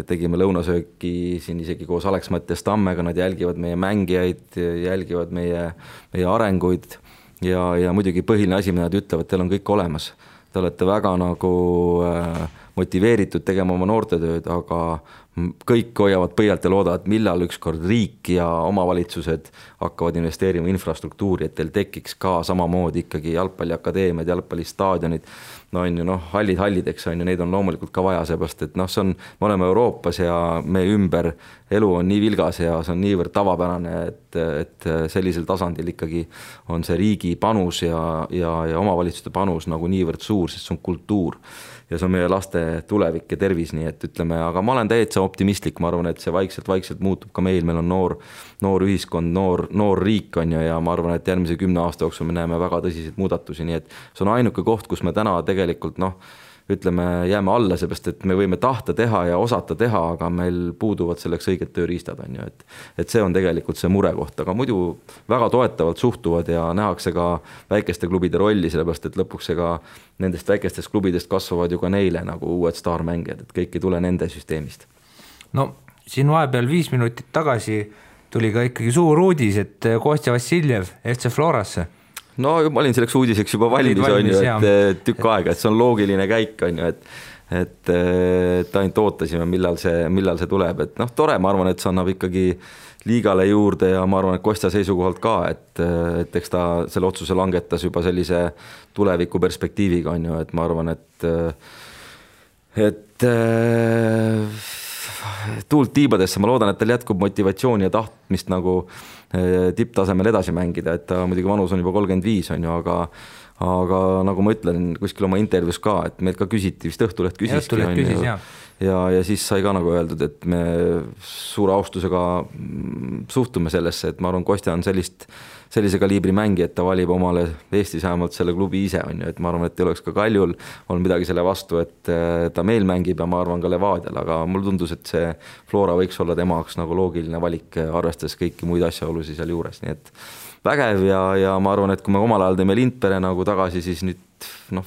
Tegime lõunasööki siin isegi koos Alex Mattias Tammega, nad jälgivad meie mängijaid, jälgivad meie arenguid ja muidugi põhiline asi, mida nad ütlevad, teil on kõik olemas. Te olete väga nagu motiveeritud tegema oma noortetööd, aga kõik hoiavad põialt ja loodavad, millal ükskord riik ja omavalitsused hakkavad investeerima infrastruktuuri, et teil tekiks ka samamoodi ikkagi jalgpalliakadeemiad, jalgpallistaadionid, no on ju hallideks on ju, neid on loomulikult ka vaja, seepärast, et noh, me oleme Euroopas ja meie ümber elu on nii vilgas ja see on niivõrd tavapärane, et sellisel tasandil ikkagi on see riigi panus ja omavalitsuste panus nagu niivõrd suur, sest see on kultuur ja see on meie laste tulevik ja tervis, nii et ütleme, aga ma olen täitsa optimistlik, ma arvan, et see vaikselt muutub ka meil on noor ühiskond, noor riik on ju ja ma arvan, et järgmise 10 aasta jooksul me näeme väga tõsiseid muudatusi, nii et see on ainuke koht, kus me täna tegelikult noh, ütleme, jääme alla, seepärast, et me võime tahta teha ja osata teha, aga meil puuduvad selleks õiged tööriistad on ju, et see on tegelikult see murekoht, aga muidu väga toetavalt suhtuvad ja nähakse ka väikeste klubide rolli, sellepärast, et lõpuks ega nendest väikestest klubidest kasvavad ju ka neile nagu uued staarmängijad, et kõik ei tule nende süsteemist. No siin vahepeal 5 minutit tagasi tuli ka ikkagi suur uudis, et Kostja Vassiljev FC Florasse. No ma olin selleks uudiseks juba valmis on ju, et tükk aega, et see on loogiline käik on ju, et ainult ootasime, millal see tuleb, et noh, tore, ma arvan, et see annab ikkagi liigale juurde ja ma arvan, et Kostja seisukohalt ka, et eks ta selle otsuse langetas juba sellise tuleviku perspektiiviga on ju, et ma arvan, et tuult tiibadesse, ma loodan, et tal jätkub motivatsiooni ja tahtmist nagu tipptasemel edasi mängida, et ta muidugi vanus on juba 35 on ju, aga nagu ma ütlen kuskil oma intervjuus ka, et meilt ka küsiti, vist Õhtuleht küsiski ja siis sai ka nagu öeldud, et me suure austusega suhtume sellesse, et ma arvan, Kostja on sellise kaliibri mängi, et ta valib omale Eestis vähemalt selle klubi ise on ju, et ma arvan, et ei oleks ka Kaljul on midagi selle vastu, et ta meil mängib ja ma arvan ka Levadial, aga mul tundus, et see Flora võiks olla tema jaoks nagu loogiline valik, arvestades kõiki muid asjaolusid seal juures, nii et vägev ja ma arvan, et kui me omal ajal teeme Lindpere nagu tagasi, siis nüüd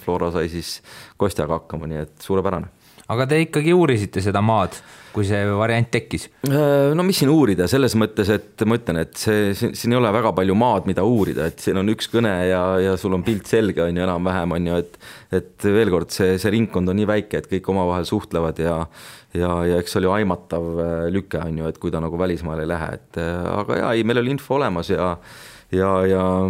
Flora sai siis Kostjaga hakkama, nii et suurepärane. aga te ikkagi uurisite seda maad, kui see variant tekkis? No mis siin uurida, selles mõttes, et ma ütlen, et siin ei ole väga palju maad, mida uurida, et siin on üks kõne ja sul on pilt selge, on ju, enam-vähem, on ju, et veel kord, see ringkond on nii väike, et kõik omavahel suhtlevad ja eks oli aimatav lüke, on ju, et kui ta nagu välismaale ei lähe, et aga ei, meil oli info olemas ja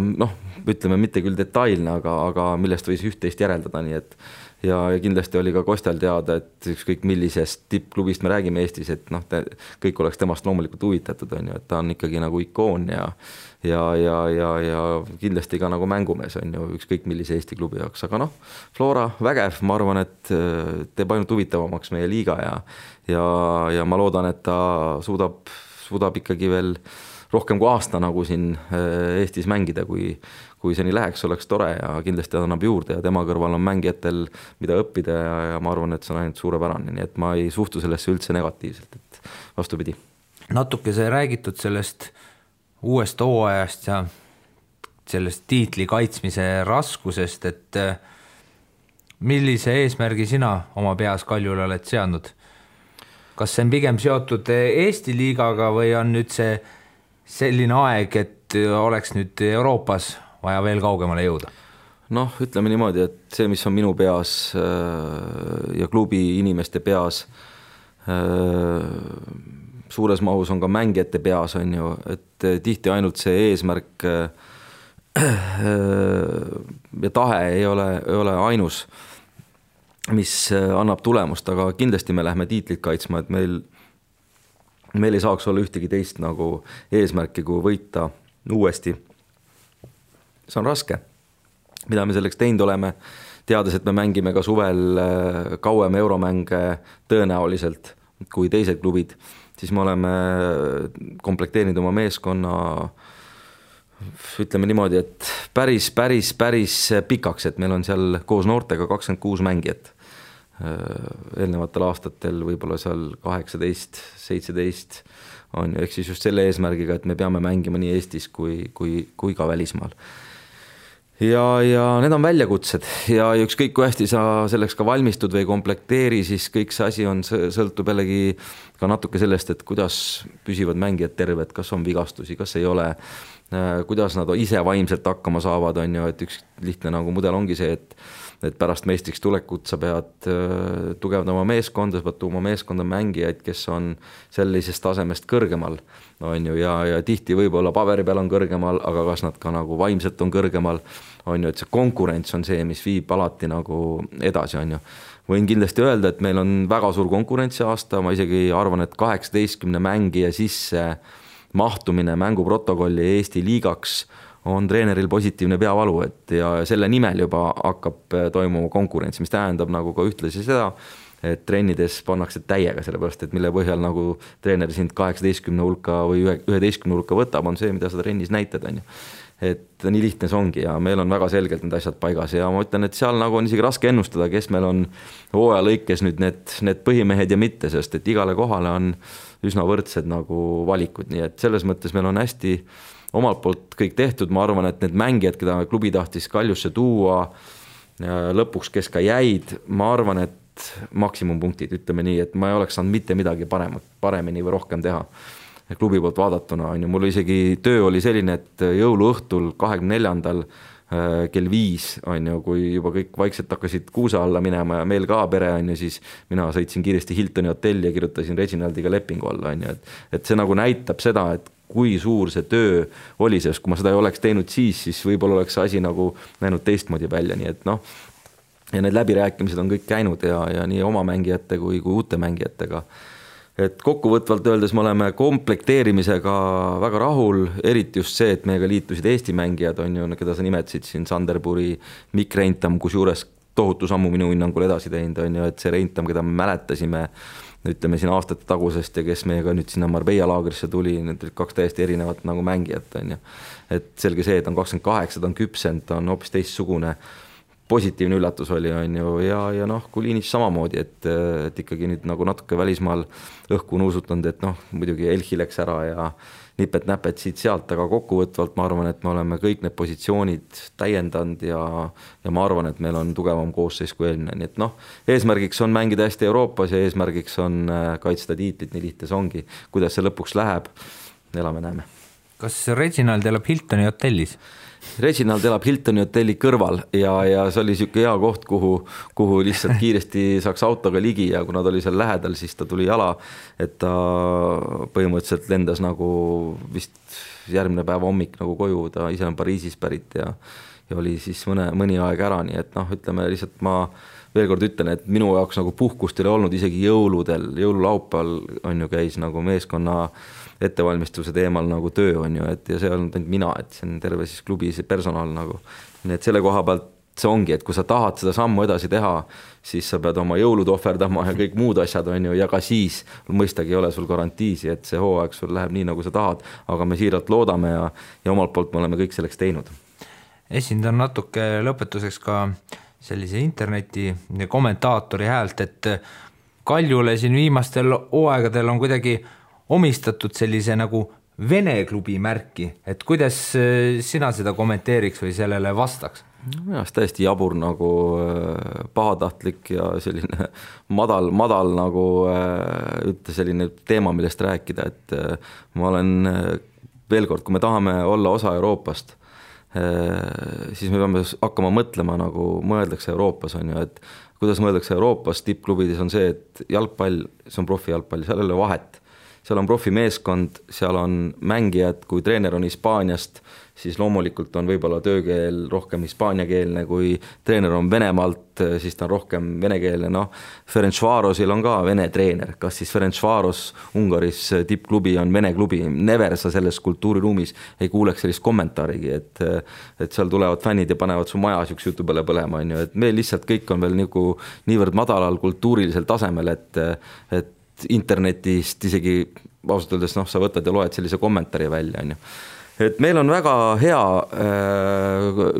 noh, ütleme mitte küll detailne, aga millest võis üht-teist järeldada, nii et ja kindlasti oli ka Kostjal teada, et ükskõik millisest tippklubist me räägime Eestis, et noh, kõik oleks temast loomulikult huvitatud, on ju, et ta on ikkagi nagu ikoon ja kindlasti ka nagu mängumees, on ju, ükskõik millise Eesti klubi jaoks, aga noh, Flora vägev, ma arvan, et teeb ainult huvitavamaks meie liiga ja ma loodan, et ta suudab ikkagi veel rohkem kui aasta nagu siin Eestis mängida, kui see nii läheks, oleks tore ja kindlasti annab juurde ja tema kõrval on mängijatel, mida õppida ja ma arvan, et see on ainult suurepärane, nii et ma ei suhtu sellesse üldse negatiivselt, et vastupidi. Natuke see räägitud sellest uuest hooajast ja sellest tiitli kaitsmise raskusest, et millise eesmärgi sina oma peas Kaljule oled seadnud? Kas see on pigem seotud Eesti liigaga või on nüüd see selline aeg, et oleks nüüd Euroopas vaja veel kaugemale jõuda? Noh, ütleme niimoodi, et see, mis on minu peas ja klubi inimeste peas, suures mahus on ka mängijate peas, on ju, et tihti ainult see eesmärk ja tahe ei ole ainus, mis annab tulemust, aga kindlasti me lähme tiitlit kaitsma, et meil ei saaks olla ühtegi teist nagu eesmärki, kui võita uuesti. See on raske, mida me selleks teinud oleme, teades, et me mängime ka suvel kauem euromänge tõenäoliselt kui teised klubid, siis me oleme komplekteerinud oma meeskonna, ütleme niimoodi, et päris pikaks, et meil on seal koos noortega 26 mängijat. Eelnevatel aastatel võib-olla seal 18, 17 on ju, ehk siis just selle eesmärgiga, et me peame mängima nii Eestis kui ka välismaal. Ja need on väljakutsed ja ükskõik kui hästi sa selleks ka valmistud või komplekteeri, siis kõik see asi sõltub jällegi ka natuke sellest, et kuidas püsivad mängijad terved, kas on vigastusi, kas ei ole, kuidas nad ise vaimselt hakkama saavad, on ju, et üks lihtne nagu mudel ongi see, et pärast meistriks tulekut sa pead tugevdama meeskonda, sa pead tuuma meeskonda mängijaid, kes on sellisest tasemest kõrgemal, on ju, ja tihti võib-olla paberi peal on kõrgemal, aga kas nad ka nagu vaimselt on kõrgemal, on ju, et see konkurents on see, mis viib alati nagu edasi, on ju. Võin kindlasti öelda, et meil on väga suur konkurentsi aasta, ma isegi arvan, et 18 mängija sisse mahtumine mänguprotokolli Eesti liigaks on treeneril positiivne peavalu, et ja selle nimel juba hakkab toimuma konkurents, mis tähendab nagu ka ühtlasi seda, et trennides pannakse täiega, sellepärast, et mille põhjal nagu treener sind 18 hulka või 11 hulka võtab, on see, mida sa trennis näitad, on ju. Et nii lihtne see ongi ja meil on väga selgelt need asjad paigas ja ma ütlen, et seal nagu on isegi raske ennustada, kes meil on hooaja lõikes nüüd need põhimehed ja mitte, sest et igale kohale on üsna võrdsed nagu valikud, nii et selles mõttes meil on hästi omalt poolt kõik tehtud, ma arvan, et need mängijad, keda klubi tahtis Kaljusse tuua lõpuks, kes ka jäid, ma arvan, et maksimumpunktid, ütleme nii, et ma ei oleks saanud mitte midagi paremini või rohkem teha klubi poolt vaadatuna, on ju, mul isegi töö oli selline, et jõuluõhtul 24. kell 5, on ju, kui juba kõik vaikselt hakkasid kuusa alla minema ja meil ka pere, on ju, siis mina sõitsin kiiresti Hiltoni hotelli ja kirjutasin Reginaldiga lepingu alla, on ju, et see nagu näitab seda, et kui suur see töö oli, sest kui ma seda ei oleks teinud siis võib-olla oleks asi nagu näinud teistmoodi välja, nii et noh, ja need läbirääkimised on kõik käinud ja nii oma mängijate kui uute mängijatega. Et kokkuvõtvalt öeldes me oleme komplekteerimisega väga rahul, eriti just see, et meiega liitusid Eesti mängijad, on ju, keda sa nimetasid siin, Sanderburi, Mikk Reintam, kus juures tohutu sammu minu hinnangul edasi teinud, on ju, et see Reintam, keda me mäletasime, ütleme siin aastate tagusest ja kes meiega nüüd sinna Marbella laagrisse tuli, need kaks täiesti erinevat nagu mängijat, on ju. Et selge see, et on 28, ta on küpsend, ta on hoopis teistsugune, positiivne üllatus oli, on ju, ja noh, Kulinitš samamoodi, et ikkagi nüüd nagu natuke välismaal õhku nuusutanud, et noh, muidugi Elchi läks ära ja nipet-näpet siit sealt, aga kokkuvõtvalt ma arvan, et me oleme kõik need positsioonid täiendanud ja ma arvan, et meil on tugevam koosseis kui eelmine, nii et noh, eesmärgiks on mängida hästi Euroopas ja eesmärgiks on kaitsta tiitlit, nii lihtne see ongi. Kuidas see lõpuks läheb, elame-näeme. Kas Reginald elab Hiltoni hotellis? Reginald elab Hiltoni hotelli kõrval ja see oli siuke hea koht, kuhu lihtsalt kiiresti saaks autoga ligi ja kuna ta oli seal lähedal, siis ta tuli jala, et ta põhimõtteliselt lendas nagu vist järgmine päev hommik nagu koju, ta ise on Pariisis pärit ja oli siis mõni aeg ära, nii et noh, ütleme lihtsalt ma veel kord ütlen, et minu jaoks nagu puhkust ei ole olnud isegi jõululaupäeval on ju käis nagu meeskonna ettevalmistuse teemal nagu töö on ju, et ja see on ainult mina, et see on terve siis klubi personal nagu. Nii et selle koha pealt see ongi, et kui sa tahad seda sammu edasi teha, siis sa pead oma jõulud ohverdama ja kõik muud asjad on ju, ja ka siis mõistagi ei ole sul garantiisi, et see hooaeg sul läheb nii, nagu sa tahad, aga me siiralt loodame ja omalt poolt me oleme kõik selleks teinud. Esindan natuke lõpetuseks ka sellise interneti kommentaatori häält, et Kaljule siin viimastel hooaegadel on kuidagi omistatud sellise nagu Vene klubi märki, et kuidas sina seda kommenteeriks või sellele vastaks? Minu arust täiesti jabur nagu pahatahtlik ja selline madal nagu selline teema, millest rääkida, et ma olen veel kord, kui me tahame olla osa Euroopast, siis me peame hakkama mõtlema nagu mõeldakse Euroopas on ju, et kuidas mõeldakse Euroopas tippklubides on see, et jalgpall, see on profijalgpall, seal ei ole vahet. Seal on profimeeskond, seal on mängijad, kui treener on Hispaaniast, siis loomulikult on võib-olla töökeel rohkem hispaaniakeelne, kui treener on Venemaalt, siis ta on rohkem venekeelne, noh, Ferencvarosil on ka vene treener, kas siis Ferencvaros Ungaris tippklubi on vene klubi, never sa selles kultuuriruumis ei kuuleks sellist kommentaarigi, et seal tulevad fännid ja panevad su maja üks jutu peale põlema, on ju, et meil lihtsalt kõik on veel niivõrd madalal kultuurilisel tasemel, et internetist isegi ausalt öeldes, noh, sa võtad ja loed sellise kommentaari välja, on ju. Et meil on väga hea,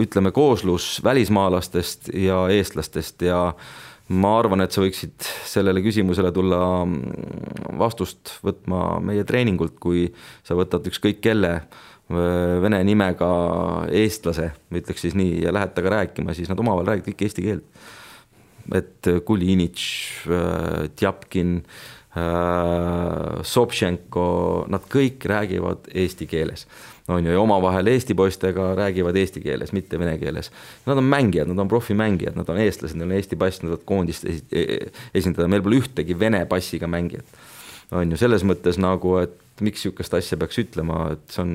ütleme, kooslus välismaalastest ja eestlastest ja ma arvan, et sa võiksid sellele küsimusele tulla vastust võtma meie treeningult, kui sa võtad ükskõik kelle vene nimega eestlase, ütleks siis nii, ja lähed taga rääkima, siis nad omavahel räägivad kõik eesti keelt. Et Kulinitš, Tjapkin, Sobtšenko, nad kõik räägivad eesti keeles. On ju, ja omavahel eesti poistega räägivad eesti keeles, mitte vene keeles. Nad on mängijad, nad on profimängijad, nad on eestlased, neil on eesti pass, nad on koondist esindada. Meil pole ühtegi vene passiga mängijat. On ju, selles mõttes nagu, et miks niisugust asja peaks ütlema, et see on...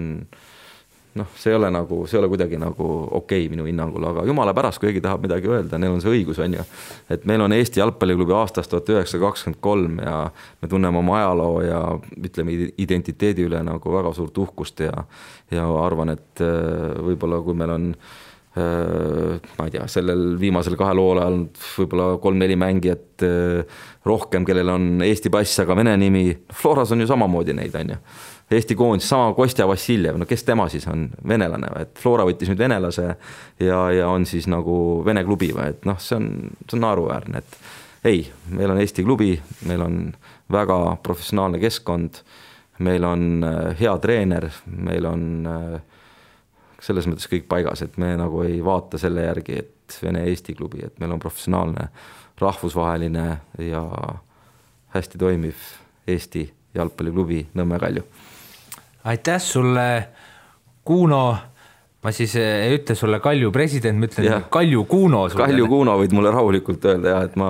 noh, see ei ole kuidagi nagu okei minu hinnangul, aga jumala pärast, kui keegi tahab midagi öelda, neil on see õigus, on ju. Et meil on Eesti jalgpalliklubi aastast 1923 ja me tunneme oma ajaloo ja ütleme identiteedi üle nagu väga suurt uhkust ja arvan, et võib-olla kui meil on ma ei tea, sellel viimasel 2 lool ajal võib-olla 3-4 mängijat rohkem, kellel on Eesti pass, aga vene nimi, Floras on ju samamoodi neid, on ju. Eesti koondis, sama Kostja Vassiljev, no kes tema siis on venelane, et Flora võttis nüüd venelase ja on siis nagu vene klubi või, et noh, see on naeruväärne, et ei, meil on Eesti klubi, meil on väga professionaalne keskkond, meil on hea treener, meil on selles mõttes kõik paigas, et me nagu ei vaata selle järgi, et Vene Eesti klubi, et meil on professionaalne, rahvusvaheline ja hästi toimiv Eesti jalgpalliklubi Nõmme Kalju. Aitäh sulle, Kuno, ma siis ei ütle sulle Kalju president, ma ütlen Kalju Kuno. Kalju Kuno võid mulle rahulikult öelda ja et ma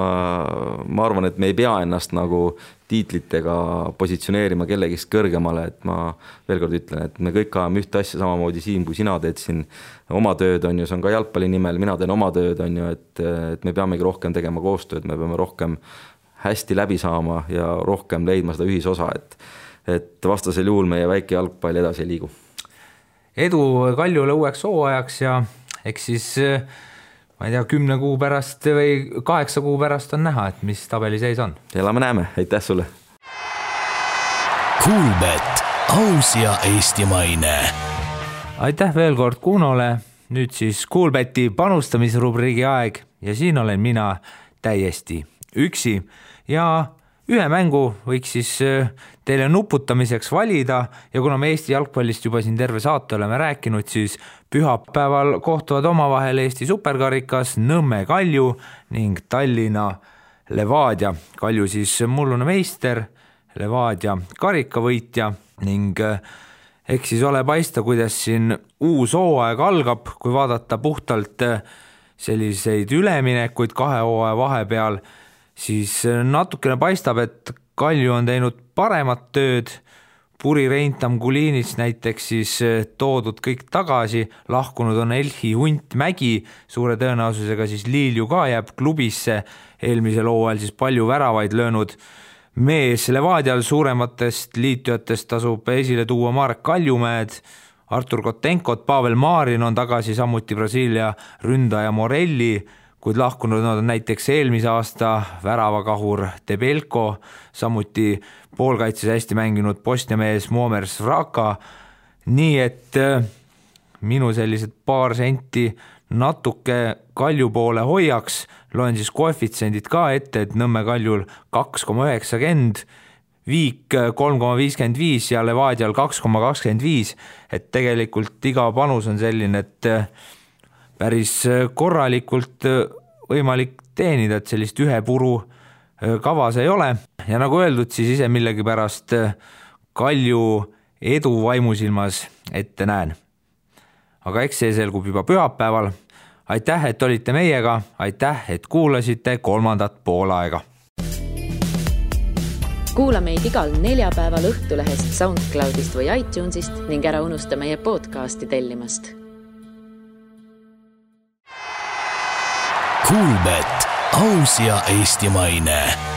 arvan, et me ei pea ennast nagu tiitlitega positsioneerima kellegist kõrgemale, et ma veel kord ütlen, et me kõik ajame ühte asja samamoodi siin, kui sina teed siin oma tööd, on ju, see on ka jalgpalli nimel, mina teen oma tööd, on ju, et me peamegi rohkem tegema koostööd, me peame rohkem hästi läbi saama ja rohkem leidma seda ühisosa, et vastasel juhul meie väike jalgpall edasi ei liigu. Edu Kaljule uueks hooajaks ja eks siis, ma ei tea, 10 kuu pärast või 8 kuu pärast on näha, et mis tabeli seis on. Elame-näeme, aitäh sulle! Kuulbet, aus ja eestimaine! Aitäh veel kord Kunole nüüd siis Kuulbeti panustamisrubriigi aeg ja siin olen mina täiesti üksi ja ühe mängu võiks siis teile nuputamiseks valida ja kuna me Eesti jalgpallist juba siin terve saate oleme rääkinud, siis pühapäeval kohtuvad omavahel Eesti superkarikas Nõmme Kalju ning Tallinna Levadia. Kalju siis mullune meister, Levadia karikavõitja ning eks siis ole paista, kuidas siin uus hooaeg algab, kui vaadata puhtalt selliseid üleminekuid 2 hooaja vahepeal, siis natukene paistab, et Kalju on teinud paremat tööd, Puri Reintam Kulinis näiteks siis toodud kõik tagasi, lahkunud on Elhi Hunt Mägi, suure tõenäosusega siis Liilju ka jääb klubisse, eelmisel hooajal siis palju väravaid löönud mees. Levadial suurematest liitujatest tasub esile tuua Marek Kaljumäed, Artur Kotenkot, Pavel Marin on tagasi, samuti Brasiilia ründaja Morelli, kuid lahkunud on näiteks eelmise aasta väravakahur Debelko, samuti poolkaitses hästi mänginud Bosnia mees Muamer Svraka, nii et minu sellised paar senti natuke Kalju poole hoiaks, loen siis koefitsendid ka ette, et Nõmme Kaljul 2,90, Viik 3,55 ja Levadial 2,25, et tegelikult iga panus on selline, et päris korralikult võimalik teenida, et sellist ühe puru kavas ei ole. Ja nagu öeldud, siis ise millegipärast Kalju edu vaimusilmas ette näen. Aga eks see selgub juba pühapäeval. Aitäh, et olite meiega, aitäh, et kuulasite 3. poolaega. Kuula meid igal neljapäeval Õhtulehest, SoundCloudist või iTunesist ning ära unusta meie podcasti tellimast. Kuulbet, aus ja eestimaine.